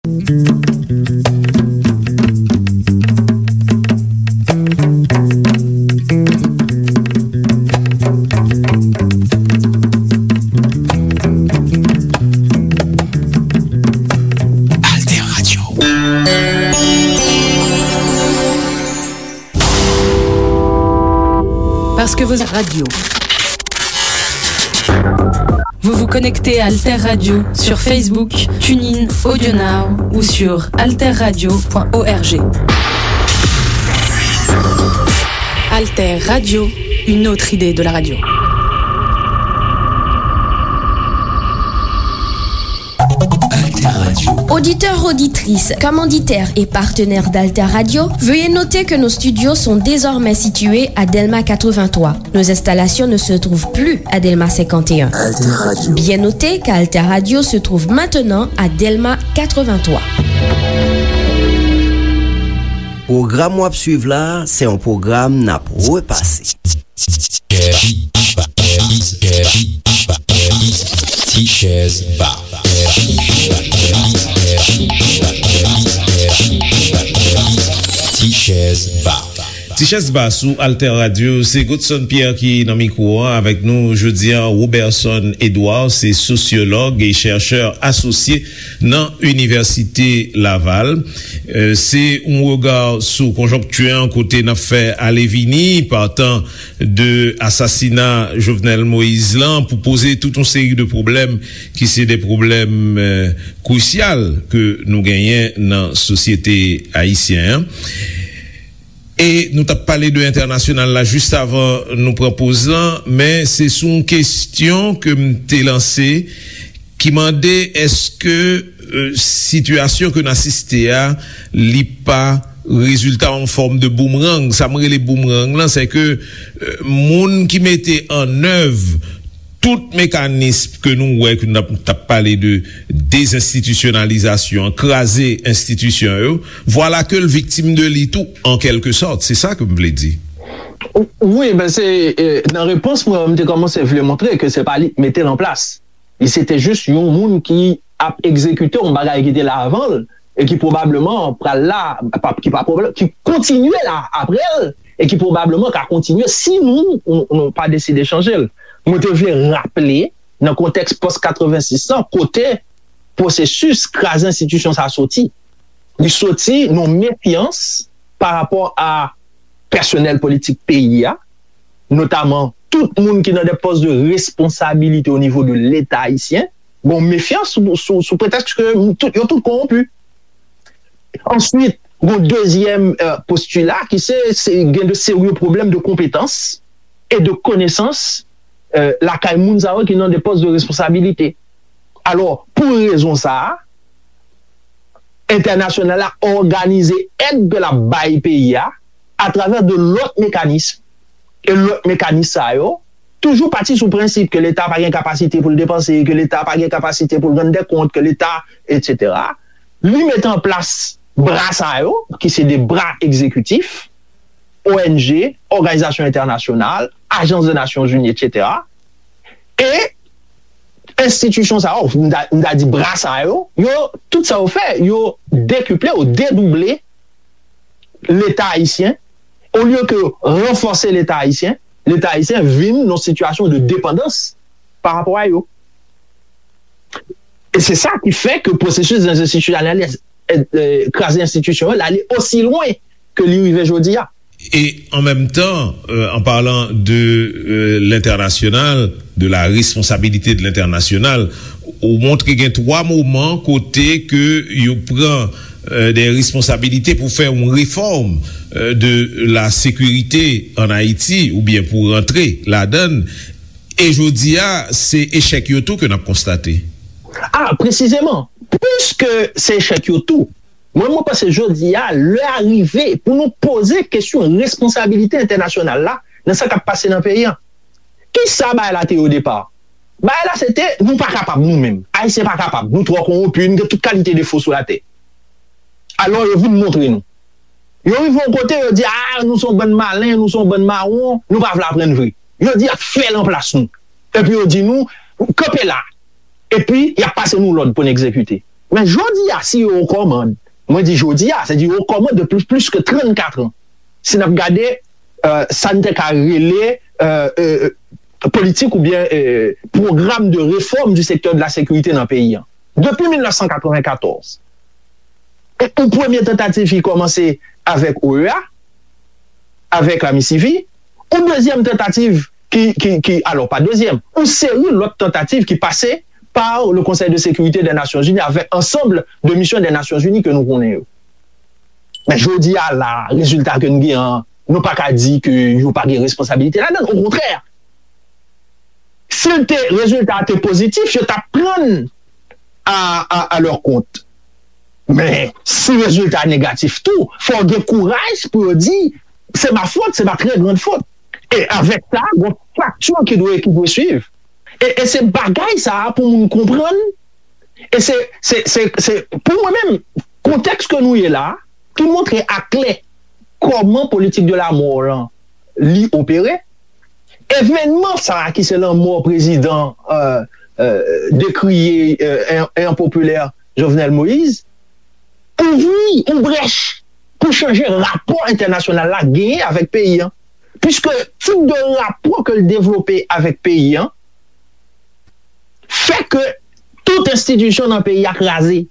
Alter Radio. Parce que vos radios. Vous vous connectez à Alter Radio sur Facebook, TuneIn, AudioNow ou sur alterradio point org. Alter Radio, une autre idée de la radio. Alter Radio. Auditeurs, auditrices, commanditaires et partenaires d'Alter Radio, veuillez noter que nos studios sont désormais situés à Delma quatre-vingt-trois. Nos installations ne se trouvent plus à Delma cinquante et un. Alter Radio. Bien noter qu'Alter Radio se trouve maintenant à Delma quatre-vingt-trois. Pwogram w ap swiv la, se yon pwogram n ap repase. Ti chèz ba. Ti chèz ba. Ti chèz ba sou Alter Radio, se Godson Pierre ki nan mikwo an. Avèk nou jodi a, Roberson Edouard, se sosyològ e chèchè asosye nan Inivèsite Laval. Euh, se yon rega sou konjonkti an kote n ap fè ale vini, patan de asasina Jovenel Moïse lan, pou poze tout yon seri de pwoblèm ki se de pwoblèm, euh, krisyal ke nou genyen nan sosyete ayisyen an. E nou t ap pale de entènasyonal la jis avan nou pran poz lan, men se sou yon kesyon ke m te lanse ki mande èske, euh, sitiyasyon ke n asiste a, li pa rezilta yon fòm de boomerang. Sa m rele boomerang lan, se ke, euh, moun ki mete an èv tout mekanis ke nou wè, ke n ap, t ap pale de dezenstitisyonalizasyon, kraze enstitisyon yo, vwala ke l viktim de li tou, an kèlke sòt. Se sa ke m vle di. Wi, ben se, eh, nan repons mwen, m te kòmanse vle montre ke se pa li k mete l an plas. Li se te jis yon moun ki ap egzekite yon bagay ki te la avan l e ki pwobableman pral la, pa, ki pa pwoblèm, ki kontinye la apre l e ki pwobableman ka kontinye si nou, nou, nou pa deside chanje l. Mwen te vle raple, nan kontèks pòs katrevensis lan, kote pwosesis kraze enstitisyon sa soti. Li soti nan mefyans pa rapò a pèsonèl politik peyi a, notaman tout moun ki nan de pòs de responsabilite o nivo de Leta ayisyen, gon mefyans sou, sou, sou pretèks ke tout, yo tout kowonpi. Answit, gon dezyèm, euh, postila ki se, se gen de serye pwoblèm de konpetans e de konesans, euh, lakay moun sa yo ki nan de pòs de responsabilite. Alò, pou rezon sa a, entènasyonal la òganize èd ke l ap bay peyi a atravè de lòt mekanis. E lòt mekanis sa yo toujou pati sou prensip ke Leta pa gen kapasite pou l depanse, ke Leta pa gen kapasite pou l rann dè kont, ke Leta, etsetera. Li mete an plas bra sa yo, ki se de bra egzekitif, O N G, òganizasyon entènasyonal, ajans de Nasyonzini, etsetera. E enstitisyon sa yo, m ta, m ta di bra sa yo, yo, tout sa yo fè, yo dekiple ou dedouble Leta ayisyen, olye ke ranfòse Leta ayisyen, Leta ayisyen vin nan sitiyasyon de depandans pa rapò a yo. E se sa ki fè ke pwosesis dezenstitisyonaliz-, e, e, kraze enstitisyon yo, l ale osi lwen ke li rive jodi a. E an menm tan, euh, en parlant de, euh, l'international, de la responsabilité de l'international, ou montre gen twa moman kote ke yo pran, euh, de responsabilite pou fè yon refòm, euh, de la sekirite an Ayiti, oubyen pou rantre ladan l. E jodi a, se echèk yo tou ke n ap konstate. A, presizeman, piske se echèk yo tou, mwen, mwen panse jodi a, lè a rive pou nou poze kesyon responsabilite entènasyonal la nan sa k ap pase nan peyi a. Kisa bagay la te ye o depa? Bagay la se te, nou pa kapab nou menm. Ayisyen pa kapab. Nou twò kowonpi, nou gen tout kalite defo sou latè. Alò, yo vin montre nou. Yo rive yon kote, yo di, a, nou se yon bann malen, nou se yon bann mawon, nou pa vle aprann vre. Yo di, y ap fè l anplas nou. Epi yo di nou, kanpe la. Epi, y ap pase nou lòd pou n egzekite. Men jodi a, si yo kòmand, mwen di jodi a, se di yo kòmand depi plis ke trannkat an. Si n ap gade euh, sa n te ka rele euh, euh, politik oubyen euh, pwogram de réforme du secteur de la sécurité nan peyi an. Depi mil nèf san katreven katòz, yon premye tantativ ki kòmanse avèk O E A, avèk la MISIVI, yon dezyèm tantativ ki, ki, ki, alò pa dezyèm, yon seri lòt tantativ ki pase par le Conseil de sécurité des Nations Unies avec ensemble de missions des Nations Unies ke nou konnen yo. Men jodi a la, rezilta ke nou gen an, nou pa ka di ke yo pa gen responsabilite ladan, okontrè. Si l te, rezilta a te pozitif, yo t ap pran a, a, a lè kont. Men si rezilta negatif tou, fò gen kouraj pou yo di se ma fòt, se ma trè grand fòt. E avèk sa, gon fakti ki dwe ki dwe swiv. E, e se bagay sa a pou moun konprann. E se, se, se, se pou mwen menm, kontèks ke nou ye la, ki montre aklè kòman politik de la mò lan li opere. Evènman sa a ki se lanmò prezidan euh, euh, dekriye euh, en, en popilè Jovenel Moïse, ouvri yon brèch pou chanje rapò entènasyonal la genyen avèk peyi an. Piske tip de rapò ke l devlope avèk peyi an fè ke tout enstitisyon nan peyi a kraze.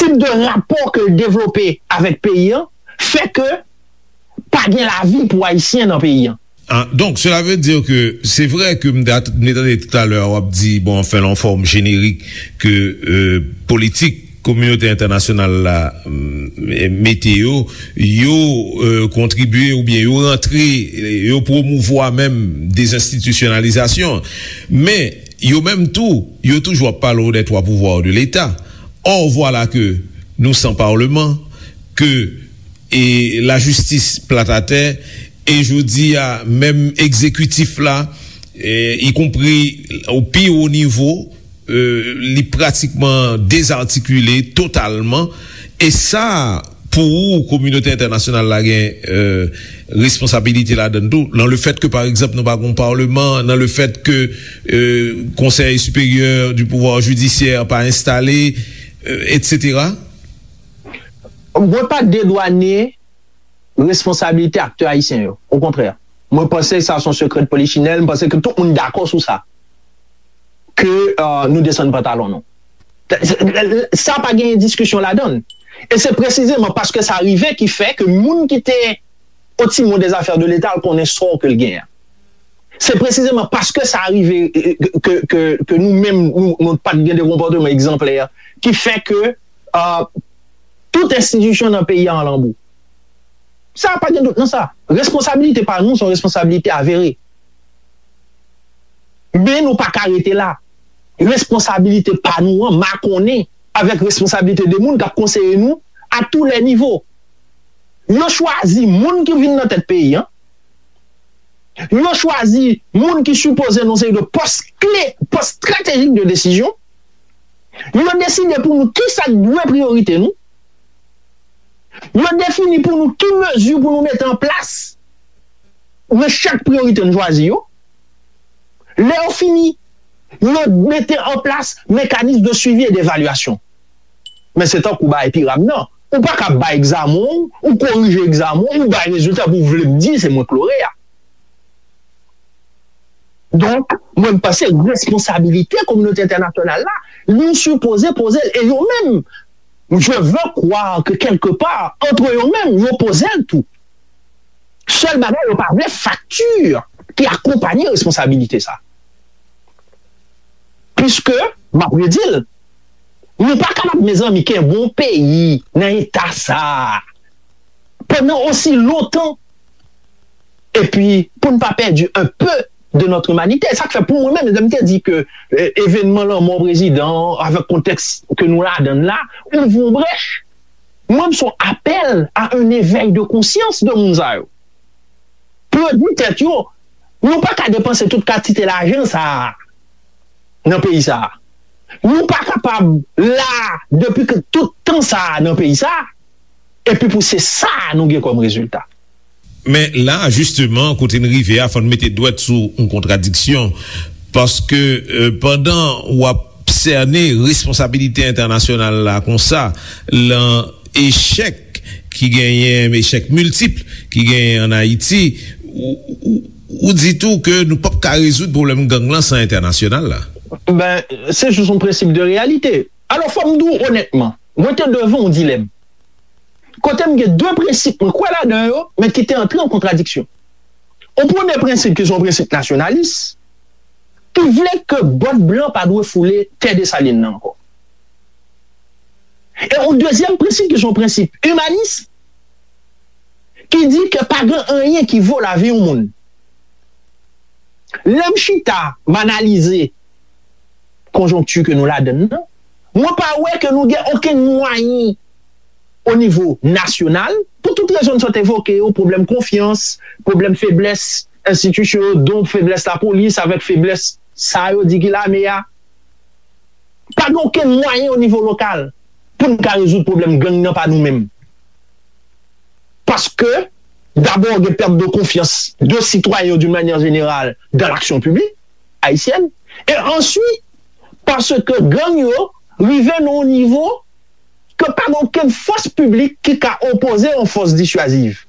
Tip de rapò ke l devlope avèk peyi an fè ke pa gen lavi pou Ayisyen nan peyi an. Ah, donc, cela veut dire que c'est vrai que m te tande talè w ap di, bon, anfen, lan fòm jenerik ke euh, politik kominote entènasyonal la mete yo, yo euh, kontribye oubyen yo rantre, yo pwomouvwa menm dezenstitisyonalizasyon. Men, yo menm tou, yo toujou ap pale w des trois pouvoirs de l'État. Or, voilà que nous sans parlement, que e lajistis plat atè, e jodi a, menm egzekitif la, e, ikonpri o pi wo nivo, e, li pratikman dezatikile totalman. E sa, pou ou, kominote entènasyonal la gen e, responsabilite ladan tou, nan le fèt ke, pa egzanp, nou pa gon palman, nan le fèt ke e, Conseil supérieur du pouvoir judiciaire pa enstale, e, etsetera. Mwen pa dedwane responsabilite aktè ayisyen yo. Okontrè. Mwen panse sa se yon sekrè de polichinèl, mwen panse ke tout moun dakò sou sa. Ke euh, nou desann pantalon nou. Sa pa gen diskisyon ladan. E se presizeman paske sa rive ki fè ke moun ki te o timon des affaires de l'État al konnen sa ke l gen an. Se presizeman paske sa rive ke, ke, ke nou menm nou, nou pa t gen de konpòteman egzanplè ki fè ke uh, tout enstitisyon nan peyi a an lanbou. Sa pa gen dout nan sa. Responsabilite pa nou se yon responsabilite avere. Men nou pa ka rete la. Responsabilite pa nou an makonnen avèk responsabilite de moun k ap konseye nou a tou lè nivo. Yo chwazi moun ki vin nan tèt peyi an. Yo chwazi moun ki sipoze nan seri de pòs kle, pòs estratejik de desizyon. Yo deside pou nou kisa k dwe priyorite nou. Yo defini pou nou ki mezi pou nou mete an plas nan chak priyorite nou chwazi yo. Lè yo fini, yo mete an plas mekanis de swivi e devalyasyon. Men se tankou bagay piram nan. Ou pa ka bay egzamen w, ou korije egzamen w, ou bay rezilta pou w vle m di se mwen k loreya. Donk, mwen m panse responsabilite kominote entènasyonal la, li sipoze poze l. E yo menm, je veux croire que quelque part, entre yo menm, yo poze l tou. Sèl bagay, yo pa vle fakti ki akonpanye responsabilite sa. Piske, m ap redi l, nou pa kapab, mezanmi, kenbe yon peyi nan eta sa a pandan osi lontan. Epi, pou n pa pèdi un peu de notre humanité. Sa k fè pou mwen menm, lè m te di ke eh, evènman lanmò prezidan an, avèk kontèks ke nou ladan l la, ouvri yon brèch. Mwen, m se yon apèl a un éveil de conscience de moun sa yo. Pou yo di tèt yo, nou pa ka depanse tout kantite lajan sa a nan peyi sa a. Nou pa kapab la depi ke tout tan sa a nan peyi sa a, epi pou se sa a nou gen kòm rezilta. Men la, jisteman, kote n rive a, fò n mete dwèt sou yon kontradiksyon. Paske euh, pandan w ap sène responsabilite entènasyonal la konsa, lan echèk ki genyen, echèk miltip ki genyen ann Ayiti, ou, ou, ou di tou ke nou p ap ka rezoud pwoblèm gang lan san entènasyonal la. Ben, se jis yon prensip de reyalite. Alò, fò m di w onètman, mwen te devan yon dilèm. Kote m gen de prensip mwen kwè ladan yo, men ki te antre an kontradiksyon. Yon premye prensip ki se yon prensip nasyonalis, ki vle ke bòt blan pa dwe foule tè Desalin nan ankò. E yon dezyèm prensip ki se yon prensip imanis, ki di ke pa gen anyen ki vo lavi yon moun. Lè m chita, m analize konjonkti ke nou ladann nan, mwen pa wè ke nou gen okenn mwayen o nivo nasyonal, pou tout rezon n sot evoke yo, pwoblèm konfyans, pwoblèm feblès enstitisyon yo, don feblès lapolis avèk feblès sa yo di ki lame a. Pa gen okenn mwayen o nivo lokal pou n ka rezoud pwoblèm gang nan pa nou menm. Paske, dabò, gen pèt de konfyans de sitwayen yo, d'une manière générale, dans l'action publique haïtienne. E answit, paske gang yo rive nan yon nivo ke pa gen okenn fòs piblik ki ka opoze yon fòs disyaziv.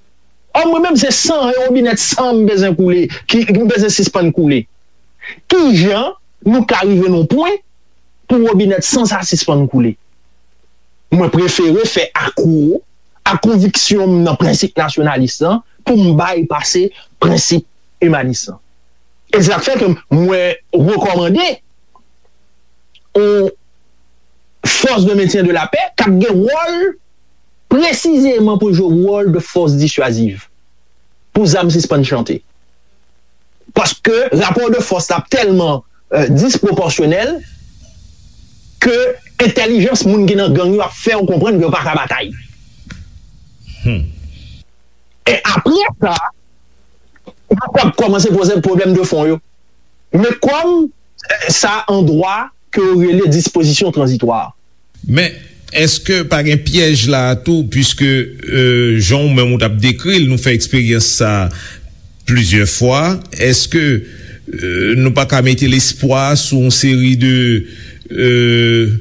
Ò, mwen menm, se san, e wobinèt san m bezwen koule, ki m bezwen sispann koule. Kijan nou ka rive nan yon pwen pou wobinèt san sa sispann koule? Mwen prefere fè akwo a konviksyon m nan prensip nasyonalis lan pou m bay pase prensip imanis lan. E se sa k fè ke mwen rekòmande yon force de maintien de la paix k ap gen wòl presizeman pou jwe wòl de force dissuasive pou zam sispann chante. Paske rapò de fòs la ap tèlman euh, disproporsyonèl ke entèlijans moun ki nan gang yo ap fè w konprann ke yo pa ka batay. Hmm. E apre sa, nou ap kòmanse poze pwoblèm de fon yo. Men kòm euh, sa an dwa ke yo rele dispozisyon tranzitwa. Men, èske pa gen pyèj la a tou, piske euh, jan w menm ou t ap dekri l, nou fè eksperyans sa a plizyè fwa, èske euh, nou pa ka mete lespwa sou yon seri de euh,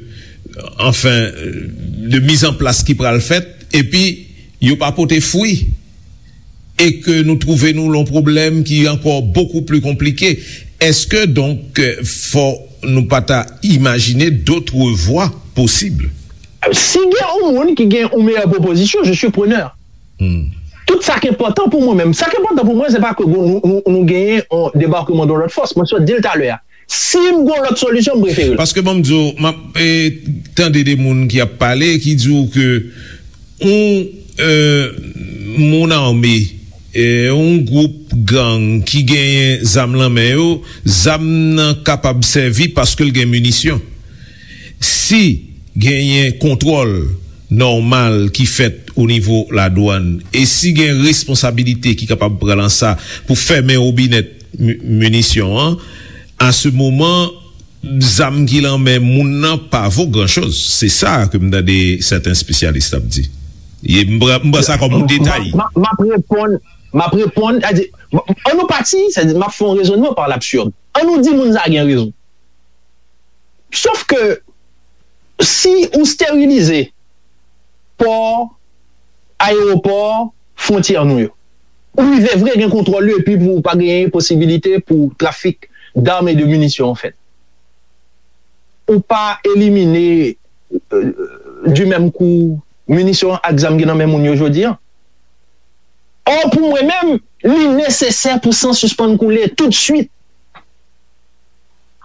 anfen, de mizanplas ki pral fèt, epi yo pa pote fwi, e ke nou twouve nou lan yon pwoblèm ki ankò bokou pli konplike? Èske donk fò nou pa ta imajine dotre vwa posib? Si gen yon moun ki gen yon meyè pwopozisyon, je suis preneur. Hmm. Tout sa ki enpòtan pou mwen menm. Sa ki enpòtan pou mwen, se pa ke nou, nou, nou genyen yon debakman de lòt fòs. Mwen sot di l talè a. Si m gen lòt solisyon, m prefere l. Paske ban m di w, m ap eh, tande de moun ki ap pale, ki di w ke yon eh, moun ame, eh, yon gwoup gang ki genyen zam lan men yo, zam nan kapab sèvi paske l gen minisyon. Si genyen kontwòl nòmal ki fèt o nivo ladwann, e si gen responsabilite ki kapab pran nan sa pou fèmen wobinèt minisyon an, a se moman, zam ki lan men moun nan pa vo gran choz. Se sa ke m tande sèten espesyalis ap di. E m pran sa kòm yon detay. M ap reponn, m ap reponn, an nou pati, m ap fè yon rezonnman pa labsird. An nou di moun sa gen rezon. Sof ke si ou sterilize pò, ayewopò, fwontyè nou yo, ou rive vre gen kontwòl yo epi pou pa genyen posibilite pou trafik dam e de minisyon an fèt. Ou pa elimine euh, du menm kou minisyon ak zam ki nan men moun yo jodi an. Or, pou mwen menm, li nesesè pou san sispann koule toutswit.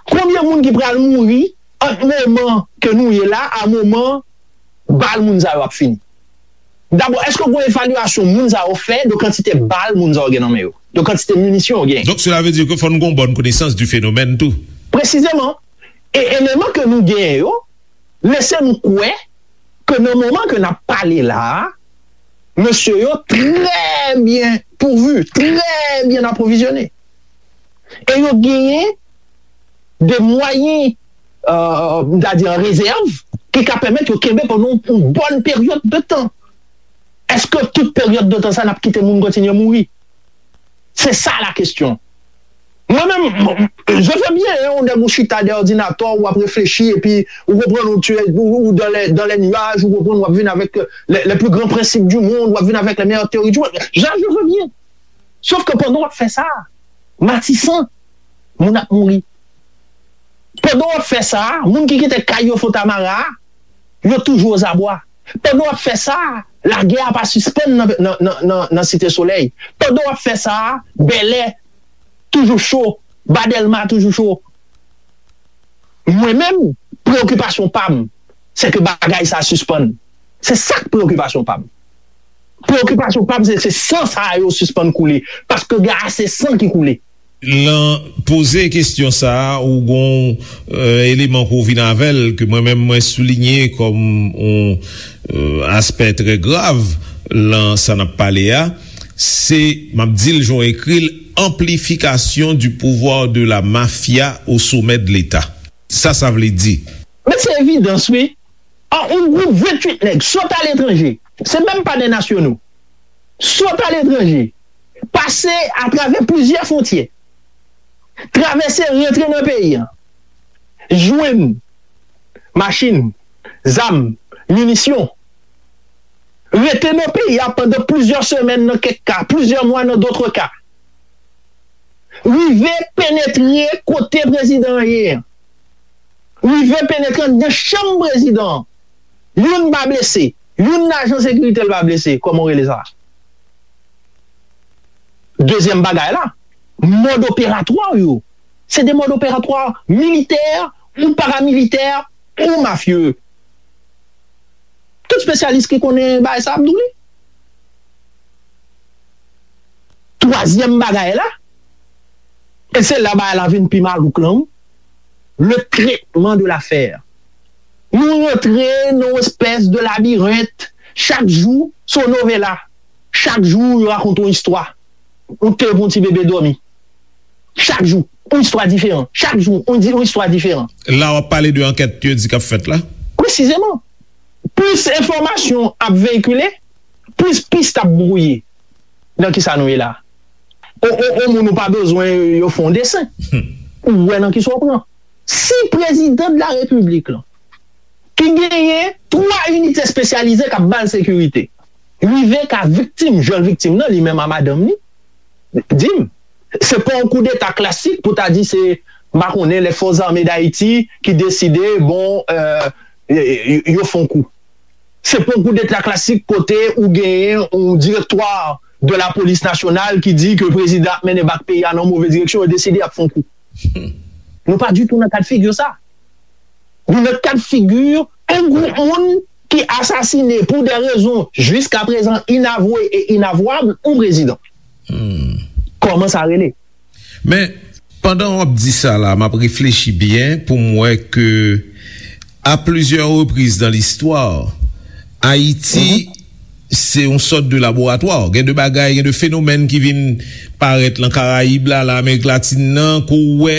Konbyen moun ki pral mouri ant moman ke nou ye la a moman bal moun sa yo ap fini? Dabò, èske gen evalyasyon moun sa yo fè de kantite bal moun sa yo gen nan men yo, de kantite minisyon yo gen? Donk, sela vle di ke fò nou gen yon bòn konesans di fenomèn tou. Presizeman. E eleman ke nou genyen yo lese nou kwè ke nan moman ke n ap pale la a, mesye yo trè byen pouvu, trè byen apwovizyone. E yo genyen de mwayen, euh, m ta di an rezèv, ki ka pèmèt yo kenbe pandan yon bòn peryòd de tan. Èske tout peryòd de tan sa n ap kite moun kontinye mouri? Se sa la kesyon. Mwen menm, je veux bien, hein, ou nèg ou chita dèyè òdinatè, w ap reflechi, epi ou konprann ou, tu es, ou, ou dans les, dans les nuages, ou konprann w ap vin avèk les, les plus grands principes du monde, w ap vin avèk les meilleures théories du monde. Je, je veux bien. Sof ke pandan w ap fè sa, Matisan, moun ap mouri. Pandan w ap fè sa, moun ki kite kay yo Fontamara, yo toujou ozabwa. Pandan w ap fè sa, lagè a pa sispann nan, nan, nan, nan, nan Site Solèy. Pandan w ap fè sa, Bèlè toujou cho, Ba Dèlma toujou cho. Mwen menm, preyokipasyon pa m, se ke bagay sa sispann. Se sa k preyokipasyon pa m. Preyokipasyon pa m, se, se san sa yo sispann koule. Paske gen ase san ki koule. Lan poze kesyon sa a, ou gon, euh, eleman ke w vin avè l, ke mwen menm mwen soulinye kòm yon, euh, aspè trè grav lan sa n ap pale a, se, m ap di l jan w ekri l, amplification du pouvoir de la mafia au sommet de l'État. Sa sa vle di? Men se evidans, wi. An, yon gwoup venntuit nèg sot aletranje, se menm pa de nasyono, sot aletranje, pase atravè plizyè fwontyè, travèse, rantre nan peyi a, jwenn machin, zam, minisyon, rete nan peyi a pandan plizyè semèn nan kèk ka, plizyè mwa nan dòt ka, rive penetre kote prezidan an ye an, rive penetre anndan chanm prezidan an. Youn pa blese, youn nan ajan sekirite l pa blese, kòman w rele sa? Dezyèm bagay la, mòd operatwa yo, se de mòd operatwa militè ou paramilitè ou mafye. Tout espesyalis ki konnen bagay sa ap di w li. Twazyèm bagay la, e se la bagay la vin pi malouk lan, wi, le traitement de l'affaire. Nou rantre nan yon espès de labirent, chak jou se yon novela, chak jou yo rakonte yon istwa. Ou te pou yon ti bebe dòmi. Chak jou, yon istwa diferan. Chak jou, yon di- yon istwa diferan. La w ap pale de ankèt yo di k ap fèt la? Presizeman. Plis enfòmasyon ap veyikile, plis pis ap bwouye. Nan kisa nou ye la? O, o, o moun ou pa bezwen yo fè yon desen. Ou wè nan kisa w pran. Si prezidan de la repiblik lan, ki genyen twa inite espesyalize k ap ba l sekirite, rive ka viktim, jwenn viktim nan, li menm a madanm li, di m, se pa yon koudeta klasik pou ta di se, m pa konnen, lè Fòs Zame Dayiti ki deside, bon, euh, yo, yo, yo fè yon kou. Se pa yon koudeta klasik kote ou genyen yon direktwa de la polis nasyonal ki di ke prezidan ap mennen bak peyi a nan move direksyon, yo deside y ap fè yon kou. Nou pa ditou nan kad figi sa. Nou nan kad figi yon gwoup moun ki asasine pou de rezon jiskaprezan inavwe e inavwab yon prezidan. Kòman sa rele? Men, pandan w ap di sa la, m ap reflechi byen pou m wè ke a plizyè repriz nan listwa, Ayiti se yon sòt de laboratwa. Gen de bagay, gen de fenomèn ki vin parèt lan Karayib la, lan Amerik Latin nan, ke w wè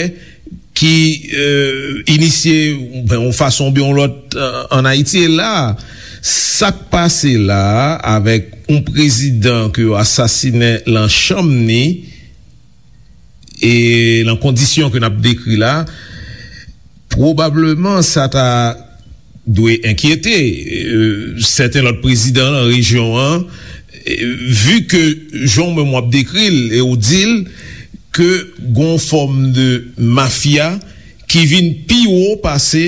ki, euh, inisye, ben, yon fason oubyen yon lòt, euh, ann Ayiti. E la, sa k pase la a, avèk yon prezidan ke yo asasinen lan chanm ni, e lan kondisyon ke n ap dekri la, pwobableman sa ta dwe enkyete, euh, sèten lòt prezidan lan rejyon an, euh, vi ke jan w menm w ap dekri l e w di l ke gon fòm de mafya ki vin pi wo pase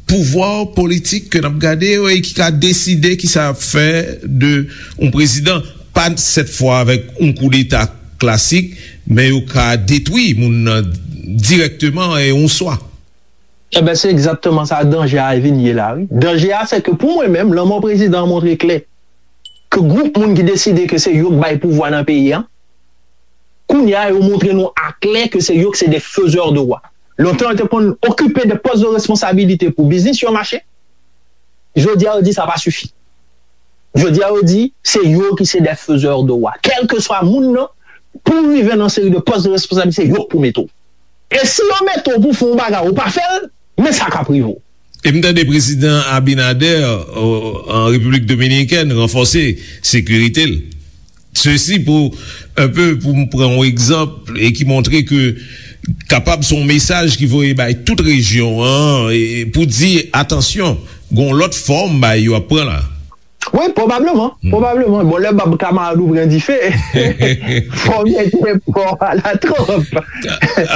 pouvwa politik ke n ap gade yo e ki ka deside kisa y ap fè de yon prezidan, pa sèt fwa avèk yon koudeta klasik, men yo ka detwi moun nan dirèkteman e yon swa. Enben, se egzakteman sa danje a vin ye la, wi. Danje a, se ke pou mwen menm, lanmò prezidan an montre klè ke gwoup moun ki deside ke se yo k bay pouvwa nan peyi a, kounye a, yo montre nou aklè ke se yo ki se de faiseurs de roi. Lontan, yo te konn okipe de pòs de responsabilite pou biznis yo mache. Jodi a, yo di sa pa sifi. Jodi a, yo di se yo ki se de faiseurs de roi. Kèlkeswa moun nan, pou w rive nan seri de pòs de responsabilite, se yo k pou mete w. E si yo mete w pou fè yon bagay, ou pa fè l, men sa k ap rive w. E m tande prezidan Abinader, o, an Repiblik Dominikèn, ranfòse sekirite l. Sesi pou, enpe, pou m pran yon egzanp, e ki montre ke kapab se yon mesaj ki voye bay tout rejyon an, e, pou di, atansyon, gen yon lòt fòm bay yo ap pran la. Wi, pwobableman, pwobableman. Bon, lè bab kamarad ou pran dife, fò w mete pòv a la twòp.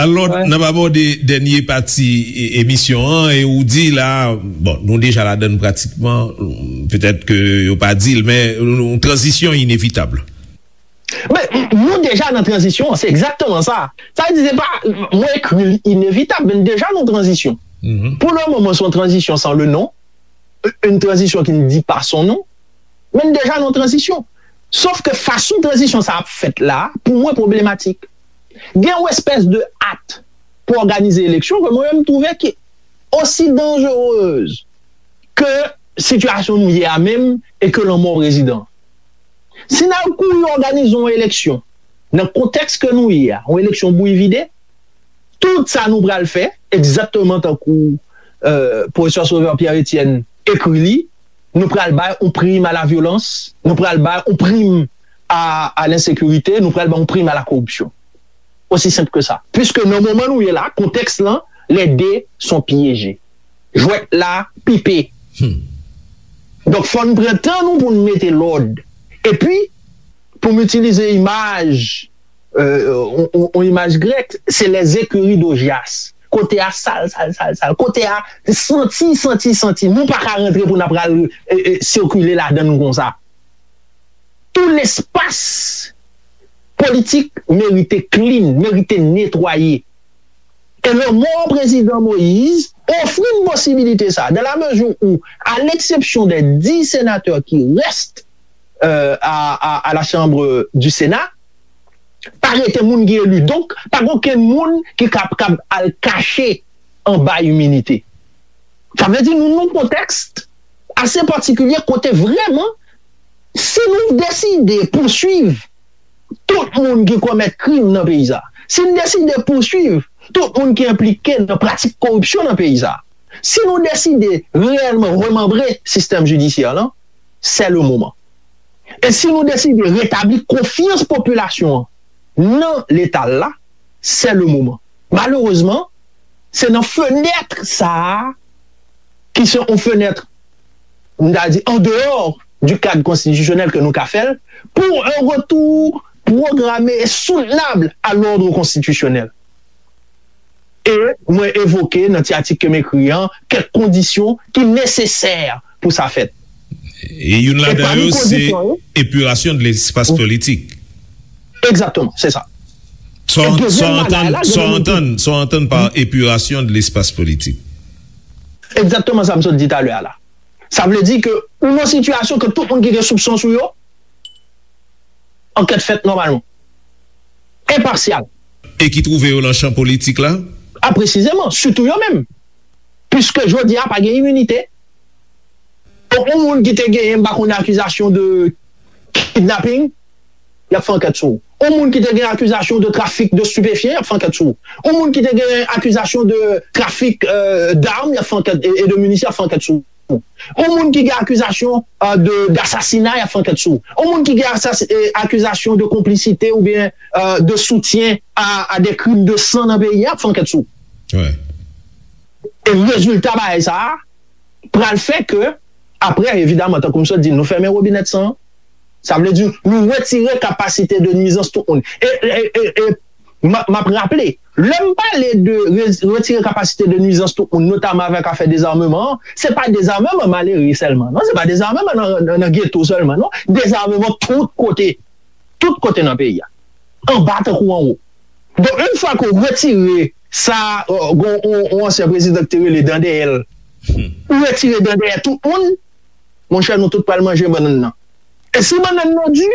Alò, n ap abòde dènye pati e- emisyon an, e ou di la, bon, nou deja ladann pratikman, petèt ke yo pa di l, men yon tranzisyon inevitab. Men, nou deja nan tranzisyon an, se egzakteman sa. Sa vle di, se pa, mwen ekri l inevitab, men deja nan tranzisyon. Pou le moman, se yon tranzisyon san le non, une transition qui ne dit pas son nom, men deja nan tranzisyon. Sof ke fason tranzisyon sa ap fèt la, pou mwen, pwoblematik. Gen yon espès de at pou òganize eleksyon ke mwen menm m twouve ki osi danjerez ke sitiyasyon nou ye a menm e ke lanmò prezidan. Si n al kouri òganize yon eleksyon nan kontèks ke nou ye a, yon eleksyon bouyi vide, tout sa nou pral fè, egzakteman tankou, euh, pwofesè Sauveur Pierre Etienne ekri li, nou pral bay yon prim a la vyolans, nou pral bay yon prim a, a lensekirite, nou pral bay yon prim a la koripsyon. Osi senp ke sa. Piske nan moman nou ye la, kontèks lan, les dés sont piégés. Jwèt la pipe. Donk, fò n pran tan nou pou n mete lòd. Epi, pou m itilize imaj, euh, on, on, on imaj grèk, se les écuries d'Augias. Kote a sal, sal, sal, sal. Kote a santi, santi, santi. Nou pa ka rantre pou n ap pral, e, e, sikile ladan l konsa. Tout lespas politik merite clean, merite netwaye. E lanmò prezidan Moïse ofri n posibilite sa, dans la mesure où, à l'exception des dix sénateurs qui restent, euh, à, à, à la Chambre du Sénat, pa rete moun ki eli. Donk, pa gen okenn moun ki kab, kab al kache anba iminite. Sa vle di nou nan yon kontèks ase patikilye kote vrèman, si nou deside pouswiv tout moun ki komèt krim nan peyi sa, si n deside pouswiv tout moun ki enplike nan pratik koripsyon nan peyi sa, si nou deside reyèlman remanbre sistèm jidisyè lan, c'est le moment. E si nou deside retabli konfyans popilasyon an nan Leta l la, c'est le moment. Malerezman, se nan fenèt sa a, ki se yon fenèt, m ta di, en dehors du cadre constitutionnel ke nou ka fè l, pour un retour programmé et soutenable à l'ordre constitutionnel. E mwen evoke nan ti atik ke m ekri an kèk kondisyon ki nesesè pou sa fèt. E youn ladan yo, se epirasyon de lespas politik. Egzakteman, se sa. Sa w antann, sa w antann, sa w antann pa epirasyon de lespas politik. Egzakteman sa m sot di talè a la. Sa vle di ke ou nan sitiyasyon ke tout moun ki gen soupson sou yo, ankèt fèt nòmalman. Enpasyal. E ki twouve yo nan chan politik la? A, presizeman, sitou yo menm. Piske jodi a pa gen iminite. Donk, yon moun ki te genyen, m pa konnen, akizasyon de kidnapping, y ap fè ankèt sou ou. Yon moun ki te gen akizasyon de trafik de stupéfiants, y ap fè ankèt sou ou. Yon moun ki te gen akizasyon de trafik, euh, d'armes, y ap fè ankèt, e, e de minisyon, y ap fè ankèt sou ou. Yon moun ki gen akizasyon, euh, de, d'assassinat, y ap fè ankèt sou ou. Yon moun ki gen asas-, e, akizasyon de konplisite oubyen, euh, de soutien à, à des crimes de sang nan peyi a, y ap fè ankèt sou ou. E rezilta bagay sa a pral fè ke, apre, evidaman, tankou m sot di, nou fèmen wobinèt san an. Sa vle di, nou retire kapasite de nwizans tout moun. E, e, e, e, m a, m ap raple, lè m pale de re-, retire kapasite de nwizans tout moun, notaman avèk afè dezameman an, se pa dezameman malere sèlman, non, se pa dezameman nan, nan, nan geto sèlman, non, dezameman tout kote, tout kote nan peyi a, anba tankou anwo. Donk, yon fwa ke w retire sa, euh, gon, on, on ansyen prezidan ki te rele dan dèyè l, ou retire dan dèyè tout moun, monchè, nou tout pral manje bannann nan. E si bannann nan di,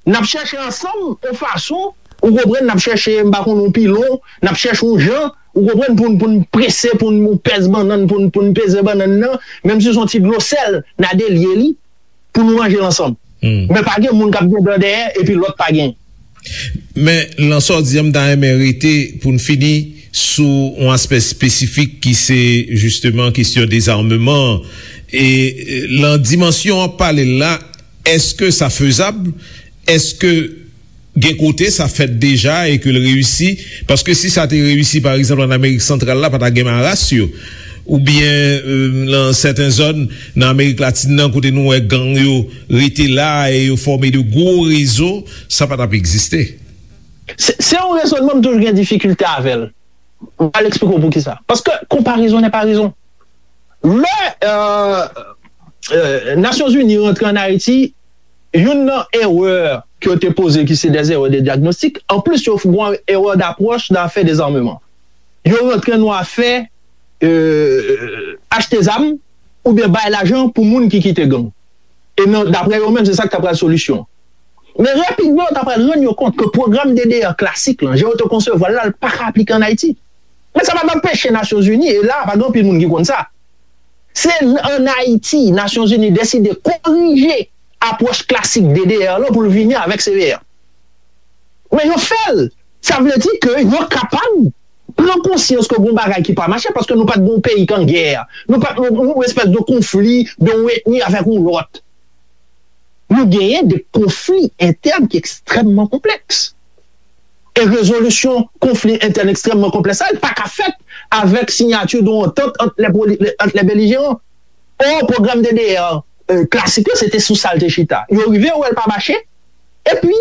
n ap chèche ansanm yon fason, ou konprann, n ap chèche, m pa konn, yon pilon, n ap chèche yon jan, ou konprann, pou n, pou n prese, pou n, yon pèz bannann, pou n, pou n peze bannann nan, menm si se yon ti dlo sèl, n a delye li, pou nou manje l ansanm. Men pa gen moun k ap gen dan dèyè, epi lòt pa gen. Men, nan sa w di a, m ta renmen rete pou n fini sou yon aspè espesifik ki se, jisteman, kesyon dezameman an. E, e, nan dimansyon w ap pale l la, èske sa fezab? Èske Gen kote sa fèt deja e ke l reyisi, paske si sa te reyisi, pa egzanp, ann Amerik Santral la, pa ta gen maras yo. Oubyen, euh, nan sèten zòn nan Amerik Latin nan, kote nou wè gang yo rete la e yo fòme de gwo rezo, sa pa t ap egziste. Se, se yon rezònman m toujou gen difikilte avè l. M pral eksplike w poukisa. Paske konparezon nè pa rezon. Lè, euh, euh, Nasyonzini rantre ann Ayiti, youn nan erè ke yo te poze ki se des erreurs de diagnostic, anplis yo fè yon erè d'approche nan afè dezarmeman. Yo rantre nan afè, euh, achte zam oubyen bay lajan pou moun ki kite gang. E nan, daprè yo menm, se sa k ta pral solisyon. Men rapidman, yo ta pral rann yo kont ke pwogram D D R klasik lan, jan yo te konsevwa l la, l pa ka aplike ann Ayiti. Men sa pa t anpeche Nasyonzini, e la, pa gen anpil moun ki konn sa. Se ann Ayiti, Nasyonzini deside korije apwòch klasik D D R lan pou l vini avèk C V R. Men yo fè l. Sa vle di ke yo kapab pran konsyans ke gon bagay ki pa mache, paske nou pa t gon peyi k an gè. Nou pa t gon, gon espès de konfli de yon etni avèk yon lòt. Nou genyen de konfli entèn ki ekstrèmman konplèks. E rezolisyon konfli entèn ekstrèmman konplèks sa, li pa ka fèt avèk siyati de yon antant ant lè poli-, ant lè belijeran. Or, pwogram D D R, euh, klasik la, se te sou sa l te chita. Yo rive wè l pa mache, epi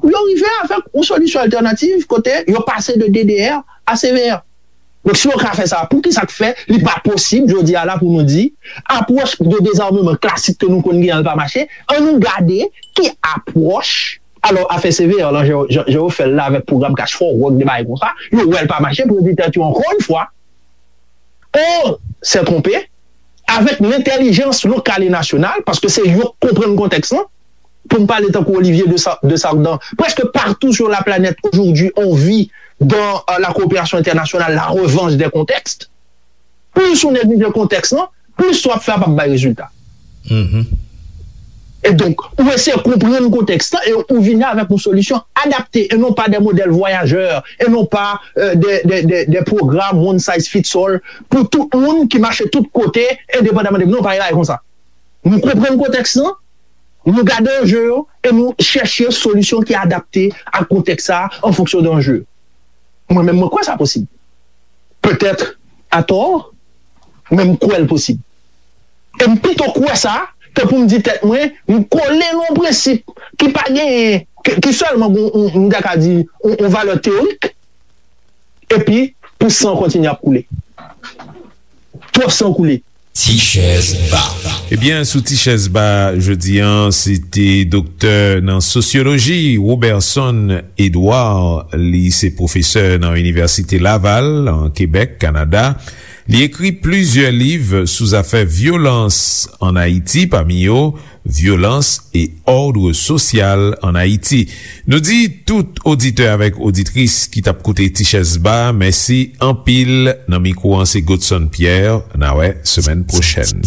yo rive avèk yon solisyon altènativ kote yo pase de D D R a C V R. Donk, si yo ka fè sa, poukisa k fè li pa posib jodi a la pou nou di, apwòch de dezarmeman klasik ke nou konn genyen an pa mache? Ann nou gade ki apwòch. Alò, afè C V R lan, jan, jan, jan yo fè l la avèk pwogram Cash for Work, de bagay konsa, yo wè l pa mache, pou yo di tèt yo, ankò yon fwa, on s'est trompé, avèk lentèlijans lokal e nasyonal, paske se yo k konprann kontèks lan. Pou m pale tankou Olivier de Sa-, de Sardan, presque partout sur la planète aujourd'hui, on vit dans, euh, la coopération internationale, la revanche des contextes. Plis ou neglije kontèks lan, plis sa w ap fè a p ap bay rezilta. E donk, ou eseye konprann kontèks lan e ou vini avèk yon solisyon adapte e non pa de modèl vwayajè e non pa, euh, de, de, de, de pwogram one size fits all pou tout moun ki mache tout kote, endepandaman de, non, pa yon bagay konsa. Nou konprann kontèks lan, nou gade anje yo e nou chèche solisyon ki adapte ak kontèks sa a an fonksyon de anje yo. Mwen menm, mwen kwè sa posib. Petèt atò, men m kwè l posib. E m pito kwè sa ke pou m di tèt mwen, m kole nan yon prensip ki pa genyen, ki, ki sèlman gon, m, m ta ka di, yon, yon valè teyorik, epi pou san kontinye ap koule. Twòp san koule. Ti chèz ba. Ebyen, sou Ti chèz ba jodi a, se te doktè nan sosyoloji, Roberson Edouard. Li se pwofesè nan Inivèsite Laval, an Kebèk, Kanada. Li ekri plizyè liv sou zafè vyolans ann Ayiti, pami yo vyolans e òdre sosyal ann Ayiti. Nou di tout oditè avèk oditris ki t ap koute Ti Chèz Ba, mèsi anpil. Nan mikwo an, se Godson Pierre. N a wè semèn pwochèn.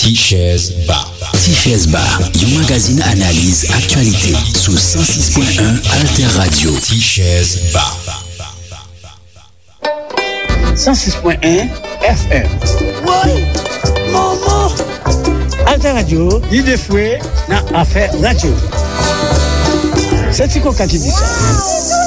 Ti Chèz Ba. Ti Chèz Ba, yon magazin analiz aktyalite sou san sis pwen en Alter Radio. Ti Chèz Ba. san sis pwen en F M. Woy! Manman! Alter Radio, lide fwe nan afè radyo. Se Ti Koka ki di sa.